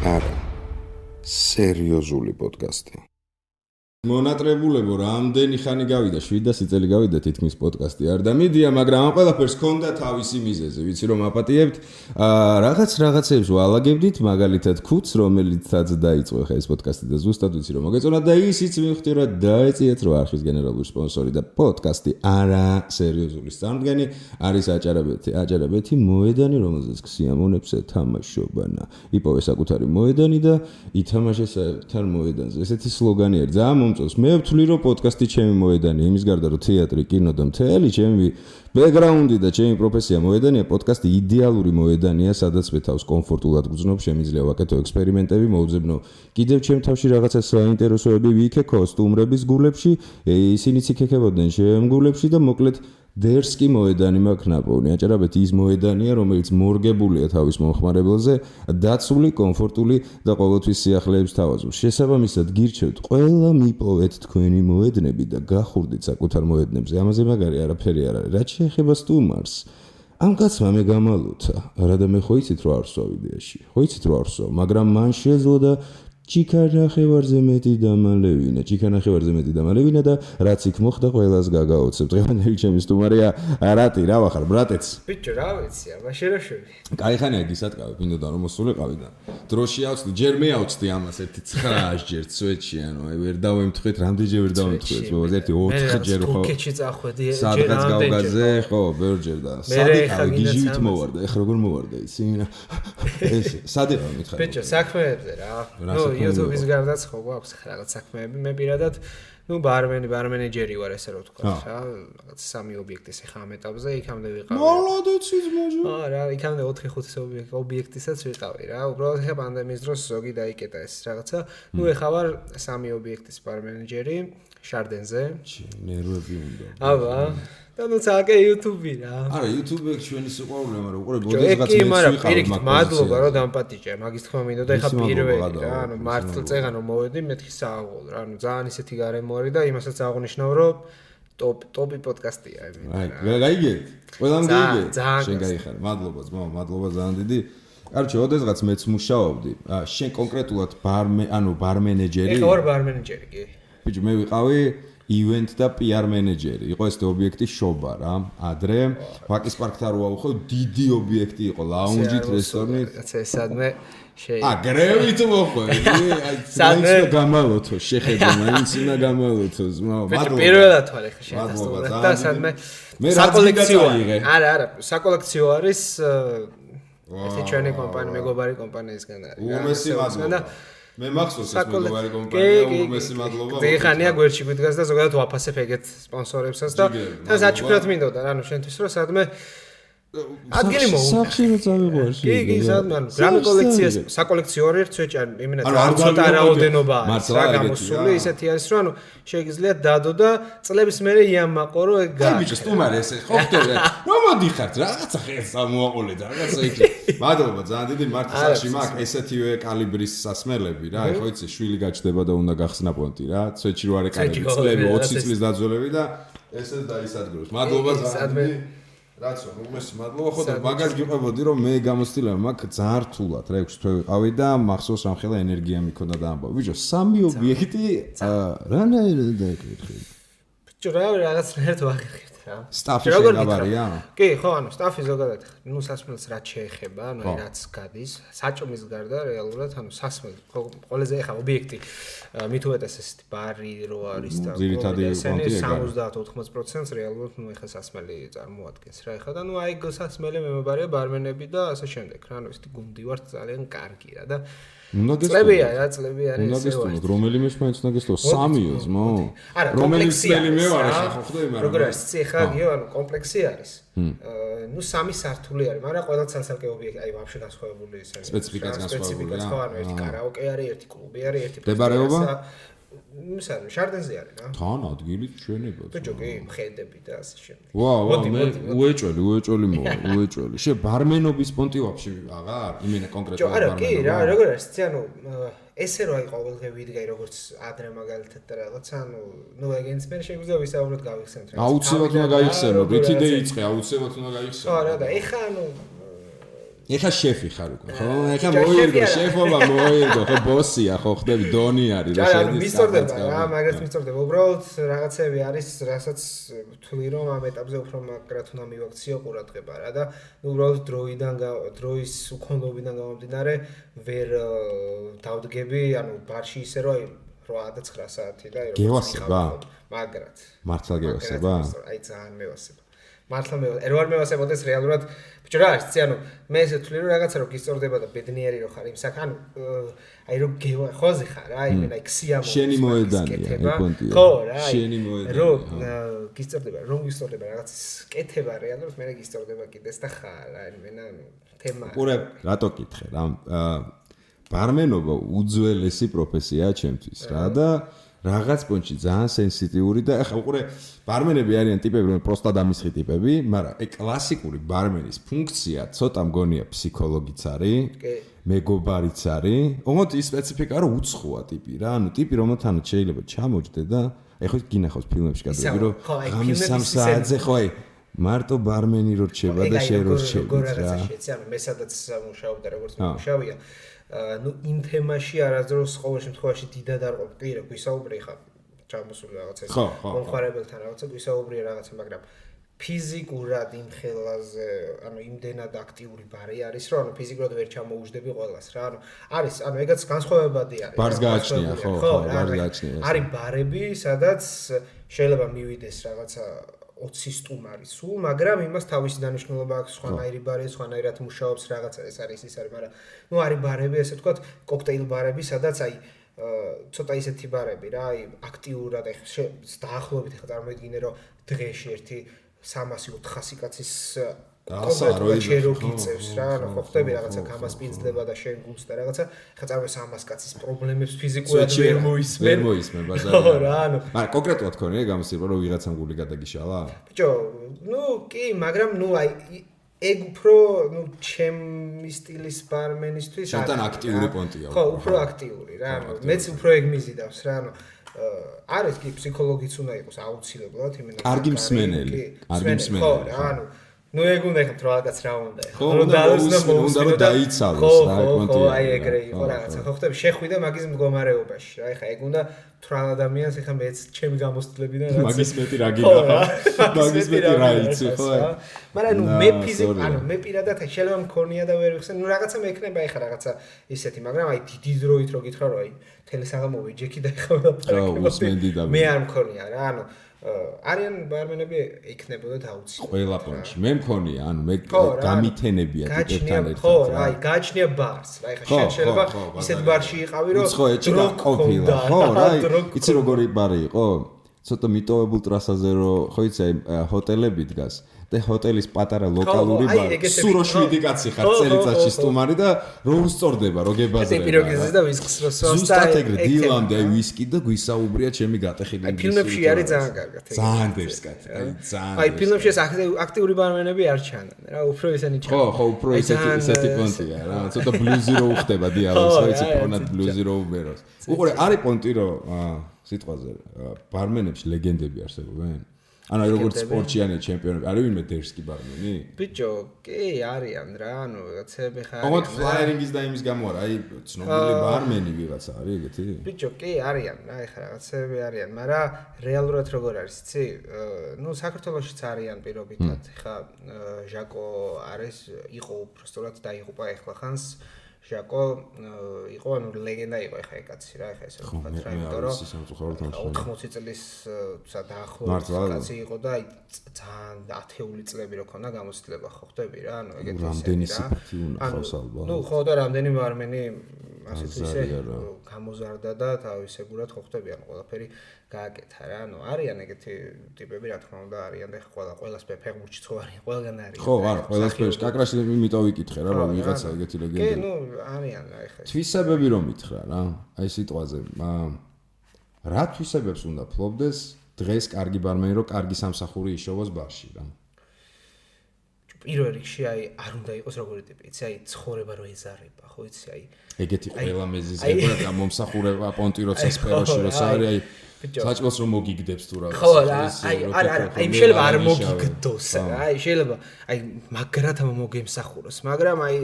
არა სერიოზული პოდკასტი. მონატრებულებო, რამდენი ხანი გავიდა, 700 წელი გავიდა თითქმის პოდკასტი არ და მიდია, მაგრამ ამ ყველაფერს ჰქონდა თავისი მიზეზი. ვიცი რომ აპატიებთ, რაღაცებს ვალაგებდით, მაგალითად ქუთს, რომელიცაც დაიწყო ხა ეს პოდკასტი და ზუსტად ვიცი რომ მოგეწონა და ისიც მივხვდი რომ დაეწიეთ რომ არხის გენერალური სპონსორი და პოდკასტი არა სერიოზული წარმდგენი არის აჭარაბეთი მოედანი, რომელზეც სიამონებს ეთამაშობანა. იპოვე საკუთარი მოედანი და ითამაშე საერთარ მოედანზე. ესეთი სლოგანი არის. მე ვთვლი რომ პოდკასტი ჩემი მოედანი, იმის გარდა რომ თეატრი, კინო და მთელი ჩემი ბექგრაუნდი და ჩემი პროფესია მოედანია, პოდკასტი იდეალური მოედანია, სადაც მე თავს კომფორტულად გძნობ, შემიძლია ვაკეთო ექსპერიმენტები, მოვძებნო კიდევ ჩემ თავში რაღაცა საინტერესოები ვიქექო სტუმრების გულებში, ისინიც იქექებოდნენ ჩემ გულებში და მოკლედ დერსკი მოედანი მაქვს ნაპოვნი. აჭარაბეთი ის მოედანია, რომელიც მორგებულია თავის მომხმარებელზე, დაცული, კომფორტული და ყოველთვის სიახლეებს თავაზობს. შესაბამისად, გირჩევთ, ყველა მიპოვეთ თქვენი მოედნები და გახურდით საკუთარ მოედნებზე. ამაზე მაგარი არაფერი არ არის. რაც შეეხება სტუმარს, ამ კაცმა მე გამალოთა. არა და მე ხო იცით რომ არ ვსვავ იდეაში. ხო იცით რომ არ ვსვავ, მაგრამ მან შეძლო და ჩიქანახევარზე მეტი დამალევინა და რაც იქ მოხდა ყველას გაგაოცებ. დღევანდელი ჩემი სტუმარია რატი, რა ვახარ, ბრატეც? ბიჭო, რა ვიცი, მაშერაშები. კაიხანია გისატკავე, მინდოდა რომ მოსულიყავი და დროში ავწდი, ჯერ მე ავწდი ამას ერთი 9 ჯერ სვეტში, ანუ აი ვერ დავემთხეთ, რამდენჯერ ვერ დავემთხეთ, მოკლედ ერთი 4 ჯერ ხო. კუქეჩი წახვედი, სადღაც გავგაზე, ხო, ბევრჯერ და სადიყავი გიჟივით მოვარდა, ეხლა როგორ მოვარდა ისი? ეს სადიყავი მითხარი. ბიჭო, საქმეებზე რა. YouTube-ის გარდაც ხო გვაქვს რაღაც საქმეები, მე პირადად ბარმენეჯერი ვარ, ესე რომ ვთქვა, რა, რაღაც 3 ობიექტის ხა ამ ეტაპზე, იქამდე ვიყავი. მოლოდეცის მოჟო. რა, იქამდე 4-5 ობიექტისაც ვიყავი, რა. უბრალოდ ხა პანდემიის დროს ზოგი დაიკეტა ეს რაღაცა. ეხა ვარ 3 ობიექტის ბარმენეჯერი შარდენზე. ნერვები უნდა. აბა და ნუ ცალკე YouTube-ი რა. არა, YouTube-ი ჩვენი სიყვარულია, მაგრამ უყურე ბოდესღაც მეც ვიყავ. მადლობა რომ დამპატიჭე, მაგის თქმა მინდო და ეხა პირველი რა, ანუ მართლწეღან რომ მოვედი, მეთქი სააღოლ რა, ანუ ძალიან ისეთი გარემო არის და იმასაც აღნიშნავ რომ ტოპი პოდკასტია იმენა. აი, გაიგეთ? ყველამ გაიგეთ? შენ გაიხარ. მადლობა ძმა, მადლობა ძალიან დიდი. კარჩე, ოდესღაც მეც მუშაობდი. შენ კონკრეტულად ბარმენეჯერი? ეხა ვარ ბარმენეჯერი, კი. ბიჭო, მე ვიყავი event და PR მენეჯერი. იყო ეს ობიექტი შობა რა. ადრე ვაკის პარკთან რო ავხო, დიდი ობიექტი იყო, ლაუნჯით, რესტორნით. კაცე, სადმე გრევით მოხვედი. აი, სადმე გამალოთო, შეხედე, მაინც უნდა გამალოთო, ზმაო. მადლობა. პირველად თვალ ეხა შეასწავლე და სადმე საკოლექციო არის. არა, საკოლექციო არის ეს ჩვენი კომპანია, მეგობარი კომპანიისგან არის. უმესი მადლობა. მე მახსოვს ეს მეგობარი კომპანია, უმესი მადლობა. დღეიხანია გვერდში გვიდგას და ზოგადად ვაფასებ ეგეთ სპონსორებსაც და თან საჩუქრად მინდოდა რა, ნუ შენთვის რომ სადმე ადგილი მოუნდა. სახში რო წავიღვარში. კი, სადმე ანუ გრამი კოლექციას, საკოლექციო არის ცვეჭი, იმენა ცოტა რაოდენობა არის რა გამოსული, ისეთი არის რომ ანუ შეიძლება დადო და წლების მერე იამაყო რომ ეგ აი ბიჭო, სტუმარი ესე ხო ხდება. რომ მოდიხართ, რაღაცა ხერს ამოაყოლეთ, რაღაცა იქ. მადლობა, ძალიან დიდი მართლა სახში მაქვს ესეთივე კალიბრის სასმელები რა, ხო იცი, შვილი გაჩნდება და უნდა გახსნა პონტი რა, ცვეჭი რო არის კალიბრი, წლები 20 წლის დაძველები და ესეც დაისადგუროს. მადლობა ძალიან დიდი. რაცო, უმესი მადლობა, ხო და მაგას გიყვებოდი რომ მე გამოცდილება მაქვს ძალიან რთულად რა 6 თვე ვიყავი და მახსოვს რამხელა ენერგია მიქონდა და ამბავ. ბიჭო, 3 ობიექტი რანაირად დაეკითხე? ბიჭო, რაღაცნაირად ვაღიხეთ რა. სტაფი შეგაბარია? კი, ხო, ანუ სტაფი ზოგადად, ნუ სასმელს რაც შეეხება, ანუ რაც გადის, საჭმის გარდა რეალურად, ანუ სასმელი, ყველაზე ეხა ობიექტი მით უმეტეს ესეთი ბარი რო არის და ძირითადი პონტია 70-80% რეალურად ნუ ეხა სასმელი წარმოადგენს რა. ეხა და ნუ აი სასმელი მემობარია ბარმენები და ასე შემდეგ რა, ანუ ესეთი გუნდი ვართ ძალიან კარგი რა და წლებია რა, წლები არის ესე ვარ. რომელიმე მაინც უნდა გესწრო 3-ო ძმო. რომელიც წელი მე ვარ ახლა ხო ხდება, მაგრამ როგორ არის ეხა გიო, ანუ კომპლექსი არის. ნუ 3 სართული არის, მაგრამ ყველა ცალ-ცალკე ობიექტი, აი ვაფშე განსხვავებული ისე. სპეციფიკაც განსხვავებულია. ხო, ანუ ერთი კარაოკე არის, ერთი კლუბი არის, ერთი მდებარეობა? მისარი, შარდენზე არის რა. თან ადგილი ჩვენება. ბიჭო, კი, მხედები და ასე შემდეგ. ვაუ, მე უეჭველი მოვა, უეჭველი. შე ბარმენობის პონტი ვაფშე აღარ? იმენა კონკრეტულად ბარმენობა. არა, კი, რა, როგორ არის, ანუ ესე რო აი ყოველდღე ვიდგაი როგორც ადრე მაგალითად და რაღაც, ანუ ნუ ეგენს მე შეგვიძლია ვისაუბროთ გავიხსენოთ რა. აუცილებლად უნდა გაიხსენო, რითი დაიწყე, აუცილებლად უნდა გაიხსენო. ხო, რა და ეხა ანუ ეხა შეფი ხარ უკვე, ხო? ეხა მოირგო, შეფობა მოირგო, ხო ბოსია, ხო ხდები დონი არის რა შედის. მისწორდება რა, მაგას მისწორდება. უბრალოდ რაღაცები არის, რასაც ვთვლი რომ ამ ეტაპზე უფრო მაგრად უნდა მივაქციო ყურადღება რა და უბრალოდ დროის უქონლობიდან გამომდინარე ვერ დავდგები, ანუ ბარში ისე რომ 8-9 საათი და გევასება? მაგრად. მართლა გევასება? აი ძალიან მევასება. მართლა მე ვარ მევასებოდეს რეალურად ბიჭო რა არის ანუ მე ესე ვთვლი რომ რაღაცა რომ გისწორდება და ბედნიერი რო ხარ იმ საკან აი რომ ხოზე ხარ აი მე აი ქსიამო შენი მოედანია ეკონტია ხო რა შენი მოედანია რომ გისწორდება რაღაც კეთება რეალურად მე გისწორდება კიდეს და ხარ აი მე თემა ყურე რატო კითხე რა ბარმენობა უძველესი პროფესიაა ჩემთვის რა და რაღაც პონჩი ძალიან სენსიტიური და ახლა უყურე ბარმენები არიან ტიპები რომ პროსტა დამისხი ტიპები, მაგრამ აი კლასიკური ბარმენის ფუნქცია ცოტა მგონია ფსიქოლოგიც არის, მეგობარიც არის. ოღონდ ის სპეციფიკა რომ უცხოა ტიპი რა, ანუ ტიპი რომელთანაც შეიძლება ჩამოჯდე და აი ხო გინახავს ფილმებში გადაები რომ ღამის 3 საათზე ხო აი მარტო ბარმენი რო რჩება და შენ რო რჩები რა. ანუ მე სადაც მუშაობდა როგორც მუშავია ну იმ თემაში არასდროს ყოველ შემთხვევაში დიდად არ ყოფ კი რა გვისაუბრე ხა ჩამოსული რაღაცა მომხარებელთან რაღაცა გვისაუბრია რაღაცა მაგრამ ფიზიკურად იმ ხელაზე ანუ იმდენად აქტიური ბარი არის რომ ანუ ფიზიკურად ვერ ჩამოუждები ყველას რა ანუ არის ანუ ეგაც განსხვავებადი არის ბარს გააჩნია ხო ბარს გააჩნია არის ბარები სადაც შეიძლება მივიდეს რაღაცა 20 სტუმარი სულ, მაგრამ იმას თავისი დანიშნულება აქვს, სხვანაირი ბარი, სხვანაირად მუშაობს რაღაცა ეს არის, მაგრამ ნუ არის ბარები, ესე ვთქვათ, კოქტეილ ბარები, სადაც აი ცოტა ისეთი ბარები რა, აი აქტიურად აი დაახლოებით ხა წარმოიდგინე რომ დღეში ერთი 300-400 კაცის კონკრეტულად რო გიწევს რა, ანუ ხო ხდები რაღაცა გამასპინძლება და შენ გულს და რაღაცა, ხა წარმოიდგინე 300 კაცის პრობლემებს ფიზიკურად ვერ მოისმენ ბაზარში. ხო რა, ანუ მაგრამ კონკრეტულად ქონია გამოსება რომ ვიღაცამ გული გადაგიშალა? ბიჭო, ნუ კი, მაგრამ ნუ აი ეგ უფრო ნუ ჩემი სტილის ბარმენისთვის შენთან აქტიური პონტია. ხო, უფრო აქტიური რა, ანუ მეც უფრო ეგ მიზიდავს რა, ანუ არის კი ფსიქოლოგიც უნდა იყოს აუცილებლად, იმენა კარგი მსმენელი, კარგი მსმენელი. ხო რა, ანუ ნუ ეგ უნდა ეხა რაღაცა რა უნდა ეხა უნდა რომ დაიცალოს რა კონტი აი ეგრე იყო რაღაცა ხო ხტები შეხვიდა მაგის მდგომარეობაში რა ეხა ეგ უნდა თრალ ადამიანს ეხა მეც ჩემი გამოსტლებიდან რაღაც მაგის მეტი რა გინახა მაგის მეტი რა იცი ხო მაგრამ ნუ მე ფიზიკ ანუ მე პირადად შეიძლება მქონია და ვერ ვიხსენ ნუ რაღაცა მექნება ეხა რაღაცა ისეთი მაგრამ აი დიდი დროით რო გითხრა რომ აი თელესაღამოვი ჯექი და ეხა მე არ მქონია რა ანუ არიან ბარმენები იქნებოდა აუცილებლად. ყველა პონჩი. მე მქონია, ანუ მე გამითენებია ტიპებთან ერთად. ხო, აი, გააჩნია ბარს. აი, ხა შეიძლება ისეთ ბარში იყავი, რომ ხო, ეჭი გაყოფილა. ხო, რა, იცი როგორი ბარი იყო? ცოტა მიტოვებულ ტრასაზე რო, ხო იცი, აი, ჰოტელები დგას. და ჰოტელის პატარა ლოკალური ბარი. სურო 7 კაცი ხარ წელიწადში სტუმარი და რო უსწორდება, რო გებაზრება. ეს პიროგიზის და ვისკის რო სვასდა. ზუსტად ეგრე დილამდე აი ვისკი და გვისაუბრია ჩემი გატეხილი ინგლისური. ფილმებში არის ძალიან კარგად. ძალიან დერსკად. აი ძალიან. აი ფილმებში ეს აქტიური ბარმენები არ ჩანან რა, უფრო ისინი ჩანან. ხო, ხო, უფრო ისეთი პონტია რა. ცოტა ბლუზი რო უხდება დიალოგს, ხო იცი პონად ბლუზი რო უბეროს. უყურე, არის პონტი რო სიტყვაზე ბარმენებში ლეგენდები არსებობენ? ანუ როგორც სპორტიანე ჩემპიონები, არის ვინმე დერსკი ბარმენი? ბიჭო, კი, არიან რა, ანუ რაღაცები ხარ. ოღონდ ფლაიერინგის და იმის გამო არა, აი ცნობილი ბარმენი ვიღაცა არის ეგეთი? ბიჭო, კი, არიან რა, ეხლა რაღაცები არიან, მაგრამ რეალურად როგორ არის, იცი? ნუ საქართველოშიც არიან პირობითად, ეხლა ჟაკო არის, იყო უბრალოდ დაიღუპა ეხლა ხანს. ჟაკო იყო ანუ ლეგენდა იყო ეხა ეკაცი რა ეხა ესე ვთქვათ რა იმიტომ რომ 80 წლის დაახლოებით კაცი იყო და აი ძალიან ათეული წლები რო ქონდა გამოცდილება ხო ხდები რა ანუ ეგეთი რამდენი სიფათი უნდა ხავს ალბათ ნუ ხო და რამდენი ბარმენი ასეთ ისე გამოზარდა და თავისებურად ხო ხდები ანუ ყველაფერი გააკეთა რა ანუ არიან ეგეთი ტიპები რა თქმა უნდა არიან და ყველას ფეხბურთში ხო არიან ყველგან არის ხო არა ყველას ფეხბურთში კაკრაში იმიტომ ვიკითხე რა რომ ვიღაცა ეგეთი ლეგენდა კი ნუ არიან რა ეხა თვისებები რომ მითხრა რა აი სიტყვაზე რა თვისებებს უნდა ფლობდეს დღეს კარგი ბარმენი რომ კარგი სამსახური იშოვოს ბარში რა პირველ რიგში აი არ უნდა იყოს როგორი ტიპი, იცი, აი ცხოვრება რო ეზარება, ხო იცი, აი ეგეთი ყველა მეზიზება და მომსახურება პონტი როცა სფეროში როცა არის აი საჭმელს რომ მოგიგდებს თუ რაღაც. ხო რა, აი შეიძლება არ მოგიგდოს რა, აი შეიძლება აი მაგრად მოგემსახუროს, მაგრამ აი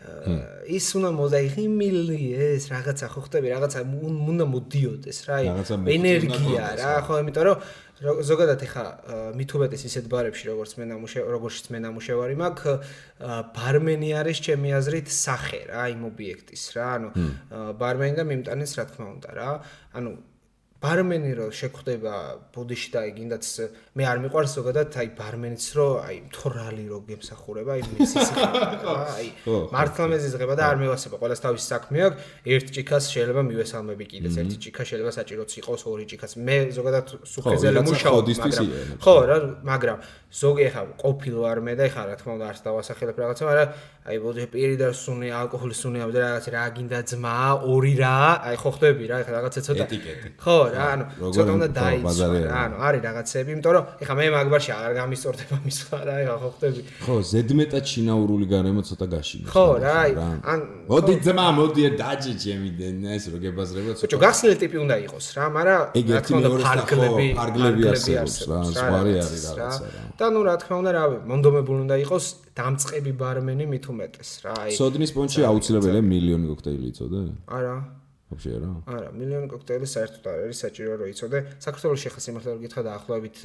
ის უნდა მოდაიღიმილი ეს რაღაცა ხო ხტები, რაღაცა უნდა მოდიოდეს რა, აი ენერგია რა, ხო, იმიტომ რომ ზოგადად ეხა მithubetes ისეთ ბარებში როგორც მე ნამუშევარი მაქვს, ბარმენი არის ჩემი აზრით სახე რა, იმ ობიექტის რა, ანუ ბარმენი და მიმტანიც რა თქმა უნდა რა, ანუ ბარმენი რო შეგხვდება ბუდიში და აი გინდაც მე არ მიყვარს ზოგადად აი ბარმენიც რო აი თორალი რო გემსახურება აი მისის აი მართლა მეზიზღება და არ მევასება ყველას თავისი საქმე აქვს ერთ ჭიქას შეიძლება მივესალმები კიდეც ერთი ჭიქა შეიძლება საჭიროც იყოს ორი ჭიქაც მე ზოგადად სუხეზელი მუშაობ ხო რა მაგრამ ზოგი ხა ყოფილო არ მე და ხა რა თქმა უნდა არც დავასახელებ რაღაცა მაგრამ აი ბოდიში პირი და სუნი ალკოჰოლის სუნი და რაღაც რა გინდა ძმა ორი რა აი ხო ხდები რა ხა რაღაცა ცოტა ხო რა ანუ ცოტა უნდა დაიცვა რა ანუ არის რაღაცები იმიტომ რომ ეხა მე მაგბარში არ გამისწორდება მისვლა რა ეხა ხო ხდები ხო ზედმეტად შინაურული გარემო ცოტა გაშინოს ხო რა ან მოდი ძმა მოდი დაჯი ჩემი ეს რო გებაზრება ცოტა გახსნილი ტიპი უნდა იყოს რა მაგრამ რა თქმა უნდა ფარგლები არსებობს რა ზღვარი არის რაღაცა რა და ნუ რა თქმა უნდა რა მონდომებული უნდა იყოს დამწყები ბარმენი მით უმეტეს რა აი სოდნის პონჩი აუცილებელია მილიონი კოქტეილი იცოდე არა вообще რა არა მილიონი კოქტეილი საერთოდ არ არის საჭირო რომ იცოდე საქართველოს შეხა სიმართლე რომ გითხრა დაახლოებით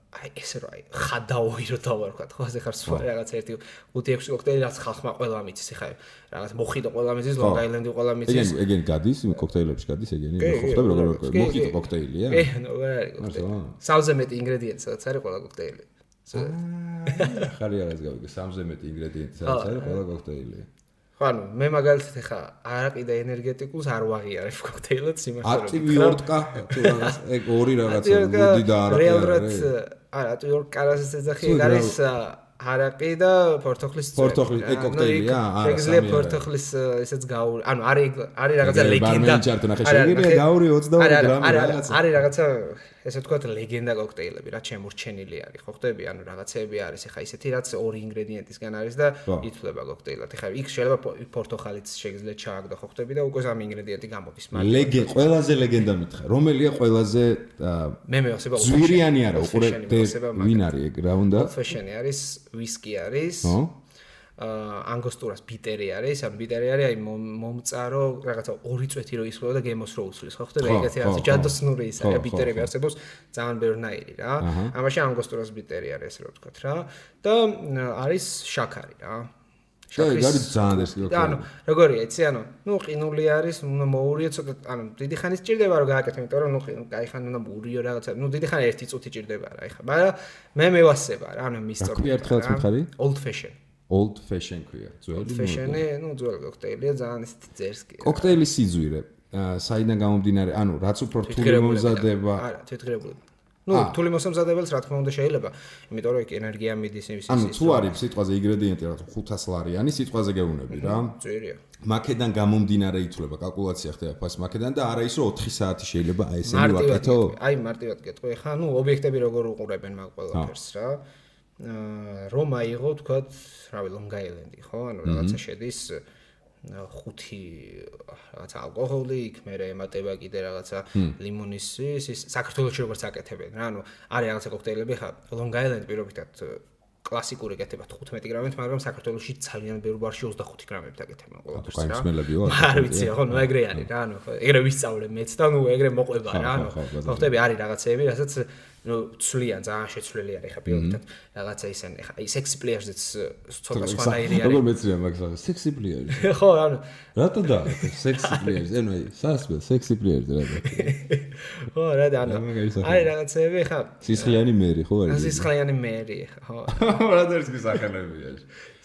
აი ესე რომ აი ხადაოი რო დავარქვათ ხო ასე ხარ სხვა რაღაც 1-5-6 კოქტეილი რაც ხალხმა ყველა მიცის ხა რაღაც მოხიტო ყველა მიცის ლონგ აილენდი ყველა მიცის ეგენი გადის კოქტეილებში გადის ეგენი ხო ხდება როგორ მოხიტო კოქტეილია ნუ რა არის კოქტეილი სამზე მეტი ინგრედიენტი სადაც არის ყველა კოქტეილი ხარი რაღაც გავიგე სამზე მეტი ინგრედიენტი სადაც არის ყველა კოქტეილი ხო ანუ მე მაგალითად ხა არაყი და ენერგეტიკულს არ ვაღიარებ კოქტეილად სიმართლე ატივიორტკა თუ რაღაც ეგ ორი რაღაცა მოდი და არაყი არა ატივიორტკა რასაც ეძახი ეგ არის არაყი და პორტოხლის პორტოხლის ეგ კოქტეილია არა შეგიძლია პორტოხლის ესეც გაური ანუ არის რაღაცა ლეგენდა შეგიძლია გაური 22 გრამი რაღაცა არის რაღაცა ესე ვთქვათ ლეგენდა კოქტეილები რა ჩემურჩენილი არის ხო ხდები ანუ რაღაცეები არის ეხა ისეთი რაც ორი ინგრედიენტისგან არის და ითვლება კოქტეილად ეხა იქ შეიძლება პორტოხალიც შეგიძლია ჩააგდო ხო ხდები და უკვე ამ ინგრედიენტი გამოდის მაგრამ ყველაზე ლეგენდა მითხრა რომელია ყველაზე მე მევასება ზვირიანი არა უყურე ვინ არის ეგ რა უნდა ფეშენი არის ვისკი არის ანგოსტურას ბიტერი არის, ანუ ბიტერი არის აი მომწარო რაღაცა ორი წვეთი რო ისხდება და გემოს რო უსვლის, ხო ხდება ეგეთი რაღაც ჯადოსნური ის არის, ბიტერები არსებობს ძალიან ბევრნაირი რა. ამაში ანგოსტურას ბიტერი არის ესე რომ ვთქვათ რა და არის შაქარი რა. შაქრის არის ძალიან ეს და ანუ როგორია იცი ანუ ნუ ყინული არის, უნდა მოურიო ცოტა ანუ დიდი ხანი სჭირდება რომ გააკეთო, იმიტომ რომ ნუ კაი ხანი უნდა მოურიო რაღაცა, ნუ დიდი ხანი ერთი წუთი ჭირდება რა ეხა, მაგრამ მე მევასება რა, ანუ მისწორ. რა ერთხელაც მითხარი? Old fashion. Old fashion ქვია. ძველი fashion-ი, ნუ ძველი კოქტეილია, ძალიან ისეთი ძერსკი. კოქტეილის სიძვირე, საიდან გამომდინარე, ანუ რაც უფრო რთული მომზადება. არა, თვითგრებული. ნუ რთული მოსამზადებელს რა თქმა უნდა შეიძლება, იმიტომ რომ ენერგია მიდის ის. ანუ თუ არის სიტყვაზე ინგრედიენტი რა 500 ლარიანი სიტყვაზე გეუბნები რა. ძვირია. მაკედან გამომდინარე ითვლება კალკულაცია ხდება ფას მაკედან და არა ის რომ 4 საათი შეიძლება აი ესენი ვაკეთო. აი მარტივად გეტყვი, ხა ნუ ობიექტები როგორ უყურებენ მაგ ყველაფერს რა. რომ აიღო თქვათ, რავი, Long Island-ი, ხო? ანუ რაღაცა შედის 5 რაღაცა ალკოჰოლი, იქ მერე ემატება კიდე რაღაცა ლიმონის ის საქართველოში როგორც აკეთებენ რა. ანუ არის რაღაცა კოქტეილები ხა Long Island პირობითად კლასიკური კეთება 15 გრამით, მაგრამ საქართველოში ძალიან ბევრ ბარში 25 გრამებით აკეთებენ ყველაფერს რა. კაიმსმელებიო. არ ვიცი, ხო, ნუ ეგრე არის რა, ანუ ეგრე ვისწავლე მეც და ნუ ეგრე მოყვება რა, ანუ ხოხტები არის რაღაცეები, რასაც ნუ ცვლიან, ძალიან შეცვლილი არის ხა პირობითად რაღაცა ისენი ხა აი სექსი პლეიერსიც ცოტა სხვანაირი არის. როგორ მეცრია მაგას? სექსი პლეიერს. ხო, ანუ რატო და სექსი პლეიერს? ანუ აი სასმელ სექსი პლეიერს რატო? ხო, რა და ანუ არის რაღაცეები ხა სისხლიანი მერი ხო არის? სისხლიანი მერი ხო. რა დერსკი სახელებია?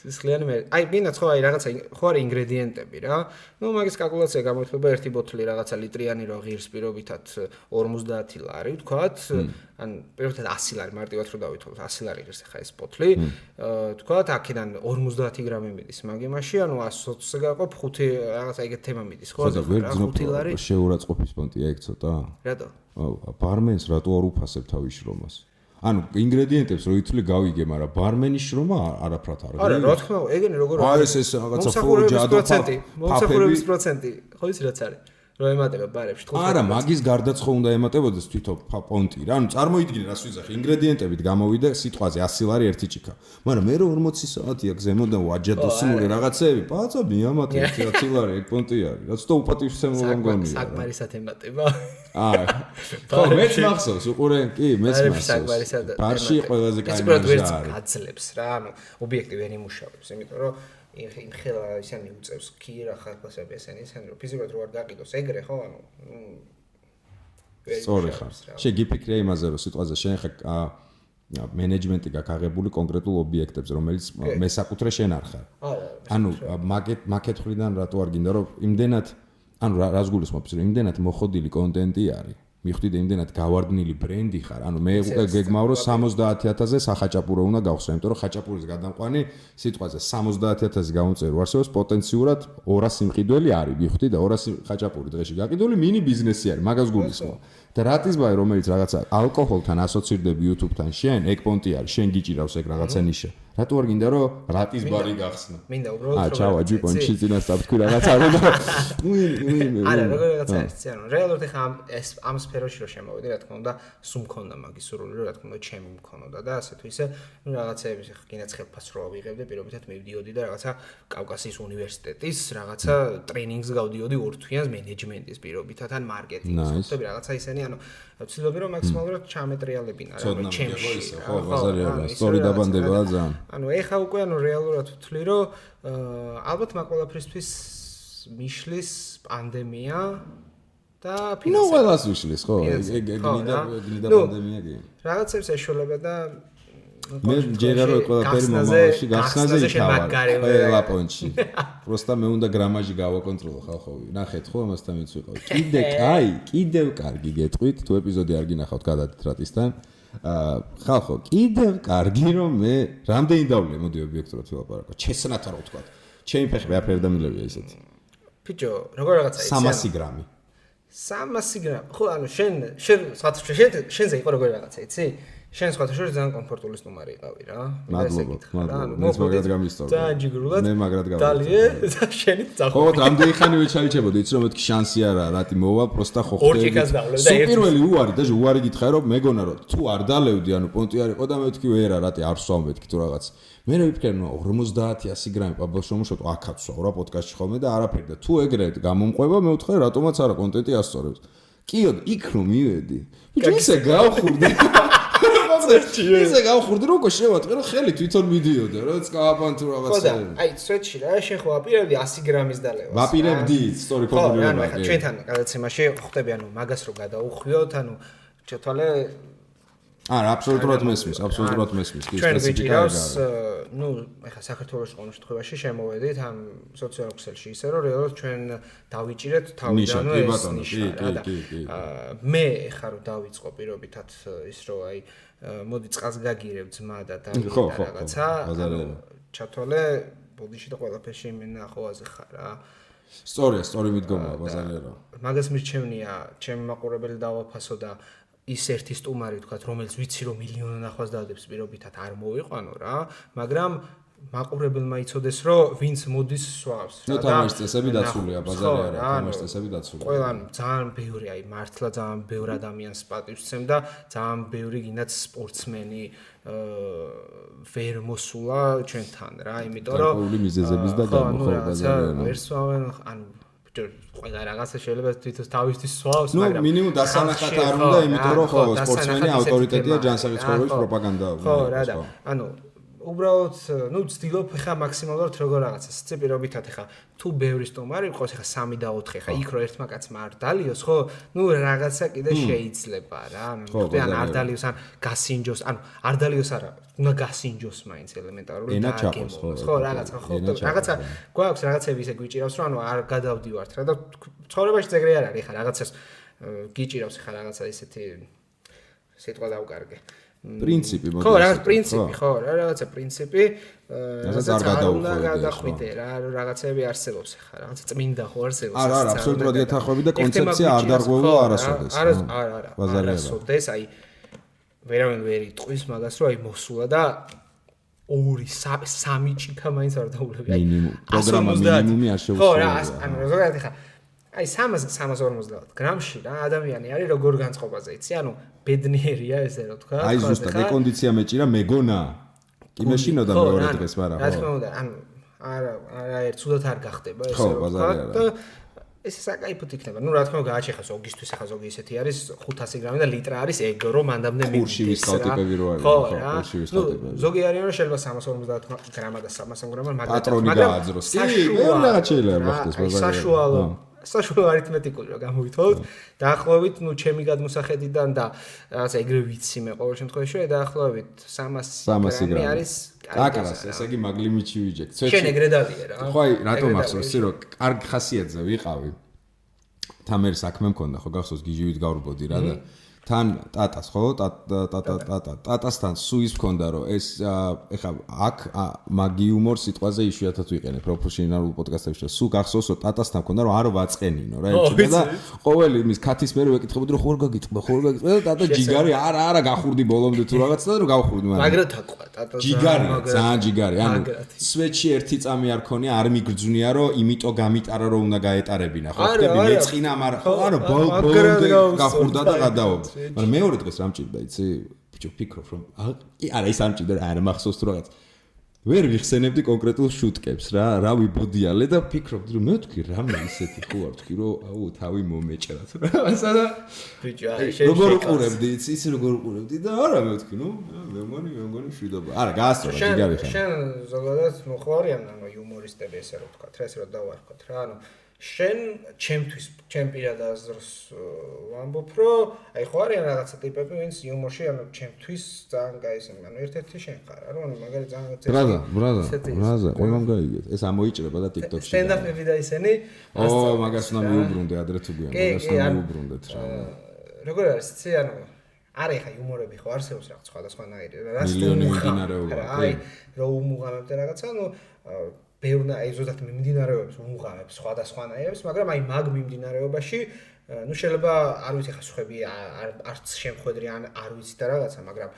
სისხლიანი მერი. აი გინდათ ხო აი რაღაცა ხო არის ინგრედიენტები რა. ნუ მაგის კალკულაცია გამოიხდება ერთი ბოთლი რაღაცა ლიტრიანი რო ღირს პირობითად 50 ლარი ვთქვათ. ან პირობითად 100 ლარი მარტივად რო დავითვალოთ 100 ლარი ღირს ხა ეს ბოთლი. ვთქვათ აქედან 50 გრამი მიდის მაგ იმაში, ანუ 120-ზე გაყოფ 5 რაღაცა ეგეთ თემა მიდის ხო? 5 ლარი შეურაცხყოფის პონტია ეგ ცოტა? რატო? ბარმენს რატო არ უფასებ თავის შრომას? ანუ ინგრედიენტებს რო ითვლი გავიგე, მაგრამ ბარმენის შრომა არაფრად არ არა, რა თქმა უნდა, ეგენი როგორ არის? ეს რაღაცა ფუჯადო მომსახურების პროცენტი, ხო იცი რაც არის? რო ემატება ბარებში. არა, მაგის გარდაც ხო უნდა ემატებოდეს თვითონ პონტი რა. ანუ წარმოიდგინე რას ვიზახი, ინგრედიენტებით გამოვიდა სიტყვაზე 100 ლარი ერთი ჭიქა. მაგრამ მე რო 40 საათია გზემოდან ვაჯადოსნული რაღაცეები, პაცა მიამატე 100 ლარი ეგ პონტი არის. რაც თო უპატივცემულობა მგონია. საკმარისად ემატება. არა. ხო, მეც მახსოვს, უყურენ კი, მეც მახსოვს. ბარში ყველაზე კაი მარჟა არის. გაძლებს რა, ანუ ობიექტი ვერ იმუშავებს, იმიტომ რომ იმ ხელა ისინი უწევს ქირა ხალხასები ესენი რომ ფიზიკურად რო არ გაყიდოს ეგრე ხო ანუ სწორი ხარ შეგიფიქრე იმაზე რომ სიტყვაზე შენ ხა მენეჯმენტი გაგაღებული კონკრეტულ ობიექტებზე რომელიც მესაკუთრე შენ არ ხარ ანუ მაკეთ ხრიდან რატო არ გინდა რომ იმდენად ანუ რას გულისხმობ რომ იმდენად მოხოდილი კონტენტი არის მიხვდით იმდენად გავარდნილი ბრენდი ხარ ანუ მე უკვე გეგმავრო 70000-ზე სახაჭაპურო უნდა გავხსნა იმიტომ რომ ხაჭაპურის გადამყვანი სიტყვაზე 70000 გამომწერო არსებობს პოტენციურად 200 სიმყიდველი არის მიხვდით და 200 ხაჭაპური დღეში გაკიდული მინი ბიზნესი არის მაგას გულისხმობ და რატისბაი რომელიც რაღაცა ალკოჰოლთან ასოცირდები YouTube-თან შენ ეგ პონტი არის შენ გიჭირავს ეგ რაღაცა ნიშა რატო არ გინდა რომ რატისბარი გახსნა მინდა უბრალოდ ჩავა ჯიპონში წინასწარ თქვი რაღაცა არა არა როგორ რაღაცა არის ანუ რეალურად ხა ამ სფეროში რო შემოვიდი რა თქმა უნდა სულ მქონდა მაგის სურვილი რა თქმა უნდა ჩემი მქონოდა და ასე თუ ისე რაღაცეების ხა გინდა ხელფას რო ავიღებდი პირობითად მივდიოდი და რაღაცა კავკასიის უნივერსიტეტის რაღაცა ტრეინინგს გავდიოდი 2 თვიანს მენეჯმენტის პირობითად ან მარკეტინგის ხუთები რაღაცა ისენი ანუ ვცდილობდი რომ მაქსიმალურად ჩამეტრიალებინა რა ჩემში ხო ბაზარია სტორი დაბანდებაა ძალიან ანუ ეხა უკვე ანუ რეალურად ვთვლი რომ ალბათ მაგ ყველაფრისთვის მიშლის პანდემია და ფინანსები. ნუ ყველას ვიშლის ხო? ეგ გნიდა პანდემია კი. რაღაცებს ეშველება და მე ჯერა რო ყველაფერი მომავალში გახსნაზე იქავა. ყველა პონჩი. პროსტა მე უნდა გრამაჟი გავაკონტროლო ხალხოვი. ნახეთ ხო ამასთან მეც ვიყავ. კიდევ კარგი გეტყვით თუ ეპიზოდი არ გინახავთ გადადით რატისთან. ხალხო, კიდევ კარგი რომ მე რამდენი დავლე მოდი ობიექტურად ვილაპარაკო. ჩესნათ რა ვთქვა. ჩემი ფეხი ვაფერ დამილებია ისეთი. ბიჭო, როგორ რაღაცა იცი? 300 გრამი. 300 გრამი. ხო, ანუ შენ შენზე იყო როგორ რაღაცა, იცი? შენ სხვა შორის ძალიან კომფორტული სტუმარი იყავი რა. მადლობა. მე მაგრად გამისტორე. ძალიან ჯიგრულად. მე მაგრად გამისტორე. დალიე და შენით წახო. ხო, რამდენი ხანი ვეჩაიჩებოდი, იცი რომ მეთქი შანსი არა, რატი მოვა, პროსტა ხო ხდება. ორჭიქას დავლე და ერთი. პირველი უარი და უარი გითხარი რომ მეგონა რომ თუ არ დალევდი, ანუ პონტი არ იყო და მე ვთქვი ვერა, რატი არ სვამ მეთქი თუ რაღაც. მე ვიფიქრე ნუ 50-100 გრამი პაბლოს შემოშოთ აქაც სვა რა პოდკასტში ხოლმე და არაფერი და თუ ეგრე გამომყვება მე ვთქვი რატომაც არა კონტენტი ასწორებს. კიო, იქ რომ მივედი. ბიჭო ისე გავხურდი. ისე გავხურდი რომ შევატყე რომ ხელი თვითონ მიდიოდა რა წკაპან თუ რაღაცა. ხო და აი სვეტში რა შენ ხო აპირებდი 100 გრამის დალევას. ვაპირებდი სტორი ფორმულირება. ხო, ანუ ჩვენთან გადაცემაში ხვდები ანუ მაგას რო გადაუხვიოთ, ანუ ჩათვალე არა, აბსოლუტურად მესმის, აბსოლუტურად მესმის. ჩვენ ვიჭირავს, ნუ, ეხლა საქართველოს ყოველ შემთხვევაში შემოვედით ამ სოციალურ ქსელში ისე რომ რეალურად ჩვენ დავიჭირეთ თავიდანვე ეს ნიშა და მე ეხლა რომ დავიწყო პირობითად ის რომ აი მოდი წყალს გაგირებ ძმა და რაღაცა ჩათვალე ბოდიში და ყველაფერში იმენა ახლოაზე ხარ რა. სწორი მიდგომაა ბაზარია რა. მაგას მირჩევნია ჩემი მაყურებელი დავაფასო და ის ერთი სტუმარი თქვა რომელიც ვიცი რომ მილიონი ნახვას დადებს პირობითად არ მოვიყვანო რა მაგრამ მაყურებელმა იცოდეს რომ ვინც მოდის სვავს რა და თამაშის წესები დაცულია ბაზარია რა თამაშის წესები დაცულია ყველანი ძალიან ბევრი აი მართლა ძალიან ბევრ ადამიანს პატივსცემ და ძალიან ბევრი გინდათ სპორტსმენი ვერ მოსულა ჩვენთან რა იმიტომ რომ გარკვეული მიზეზების და გამოხო ბაზარია ვერ სვავენ ანუ ყველა რაღაცა შეიძლება თვითონ თავისთვის სვავს, მაგრამ ნუ მინიმუმ დასანახად არ უნდა, იმიტომ რომ ხო სპორტსმენი ავტორიტეტია ჯანსაღი ცხოვრების პროპაგანდა. ხო, რა და ანუ უბრალოდ ნუ ვცდილობ ხა მაქსიმალურად როგორ რაღაცა სციპირობითად ხა თუ ბევრი სტუმარი იყოს ხა 3 და 4 ხა იქ რო ერთმა კაცმა არ დალიოს ხო ნუ რაღაცა კიდე შეიძლება რა ანუ ან არ დალიოს ან გასინჯოს ანუ არ დალიოს არა უნდა გასინჯოს მაინც ელემენტარული და გემოს ხო რაღაცა ხო რაღაცა გვაქვს რაღაცები ისე გვიჭირავს რომ ანუ არ გადავდივართ რა და ცხოვრებაში ეგრე არ არის ხა რაღაცას გიჭირავს ხა რაღაცა ისეთი სიტყვა დავკარგე პრინციპი ხო რაღაც პრინციპი ხო რაღაცა პრინციპი რაღაცა არ გადახვიდე რა რაღაცები არსებობს ხა რაღაცა წმინდა ხო არსებობს არა აბსოლუტურად ეთახვები და კონცეფცია არ დარღვეულა არასოდეს არა არასოდეს აი ვერავინ ვერ იტყვის მაგას, რომ აი მოსულა და 2-3 ჭიქა მაინც არ დაულები. მინიმუმ პროგრამა მინიმუმი არ შეუსრულია. ხო, რა, ანუ ზოგადად ხა აი 350 გრამში რა ადამიანი არის როგორ განწყობაზე იცი? ანუ ბედნიერია ესე რა თქვა. აი ზუსტად ეკონდიცია მეჭირა მეგონა. კი მეშინოდა მეორე დღეს, მაგრამ რა თქმა უნდა, ანუ არა ერთ სულად არ გახდება ესე რა თქვა. ეს საკაიფოდ იქნება. ნუ რა თქმა უნდა გააჩეხა ზოგისთვის, ახლა ზოგი ისეთი არის 500 გრამი და ლიტრა არის ეგ რომ მანდამდე მივიდეს. ხურში ვისხავტიპები რო არის. ხო, ხურში ვისხავტიპები. ზოგი არიან რომ შეიძლება 350 გრამა და 300 გრამა მაგრამ პატრონი გააძროს. კი, რაღაც შეიძლება მოხდეს ბაზარში. საშუალო არითმეტიკული რა გამოვითხოვოთ. დაახლოებით, ნუ ჩემი გადმოსახედიდან და რაღაცა ეგრე ვიცი მე ყოველ შემთხვევაში, დაახლოებით 300 გრამი არის აკარას, ესე იგი მაგლიმიჩი ვიჯექ. შენ ეგრე დადიე რა. ხო, აი, რატომ ახსოვს ისე რომ კარგ ხასიათზე ვიყავი. თან მე საქმე მქონდა, ხო გახსოვს გიჟივით გავრბოდი რა და თან ტატას ხო ტატასთან სუის მქონდა რომ ეს ეხა აქ მაგი იუმორ სიტყვაზე იშვიათად ვიყენებ პროფესიონალურ პოდკასტებში და სულ გახსოვს რომ ტატასთან მქონდა რომ არო ვაწყენინო რა ეჭვდა და ყოველი იმის ქათის მერე ვეკითხებოდი რომ ხوار გაგიტყვა და ტატა ჯიგარი არა გახურდი ბოლომდე თუ რაღაცა და რომ გავხურდი მაგრამ თაკვა ტატა ჯიგარი ძალიან ჯიგარი ანუ სვეტში ერთი წამი არ ქონია არ მიგრძვნია რომ იმიტომ გამიტარა რომ უნდა გაეტარებინა ხო ხდები მეწყინა მაგრამ ხო არა ბოლომდე გახურდა და გადავობ მაგრამ მეორე დღეს რა მჭირდა იცი ბიჭო ფიქრობ რომ არა ის არ მჭირდა არა მახსოვს თუ რაღაც ვერ ვიხსენებდი კონკრეტულ შუტკებს რა ვიბოდიალე და ფიქრობდი რომ მე თქვი რამე ისეთი ხო არ თქვი რომ აუ თავი მომეჭრათ რაღაცა და ბიჭო როგორ უყურებდი იცი როგორ უყურებდი და არა მე თქვი ნუ მე მგონი შვიდობა არა გაასწორა ჯიგარი ხარ შენ ზოგადად მოხარიან ანუ იუმორისტები ესე რომ თქვა რა ესე რომ დავარქოთ რა ანუ შენ ჩემთვის ჩემპირად აზრს ვამბობ რომ აი ხო არიან რაღაცა ტიპები ვინც იუმორში ანუ ჩემთვის ძალიან გაისმენ ანუ ერთ-ერთი შენ ხარ რა ანუ მაგარი ძალიან ბრაზა ყველამ გაიგეთ ეს ამოიჭრება და TikTok-ში სტენდაპები და ისენი მაგას უნდა მიუბრუნდე ადრე თუ გვიან მაგას უნდა მიუბრუნდეთ რა როგორ არის იცი ანუ არა ხა იუმორები ხო არსებობს რაღაც სხვადასხვანაირი რა მილიონი მიმდინარეობა აი რო უმუღამებ და რაღაცა ანუ ბევრნა აი ზოგადად მიმდინარეობებს უმუღამებს სხვადასხვანაირებს, მაგრამ აი მაგ მიმდინარეობაში ნუ შეიძლება არ ვიცი ხა სხვები არც შემხედრი ან არ ვიცი და რაღაცა, მაგრამ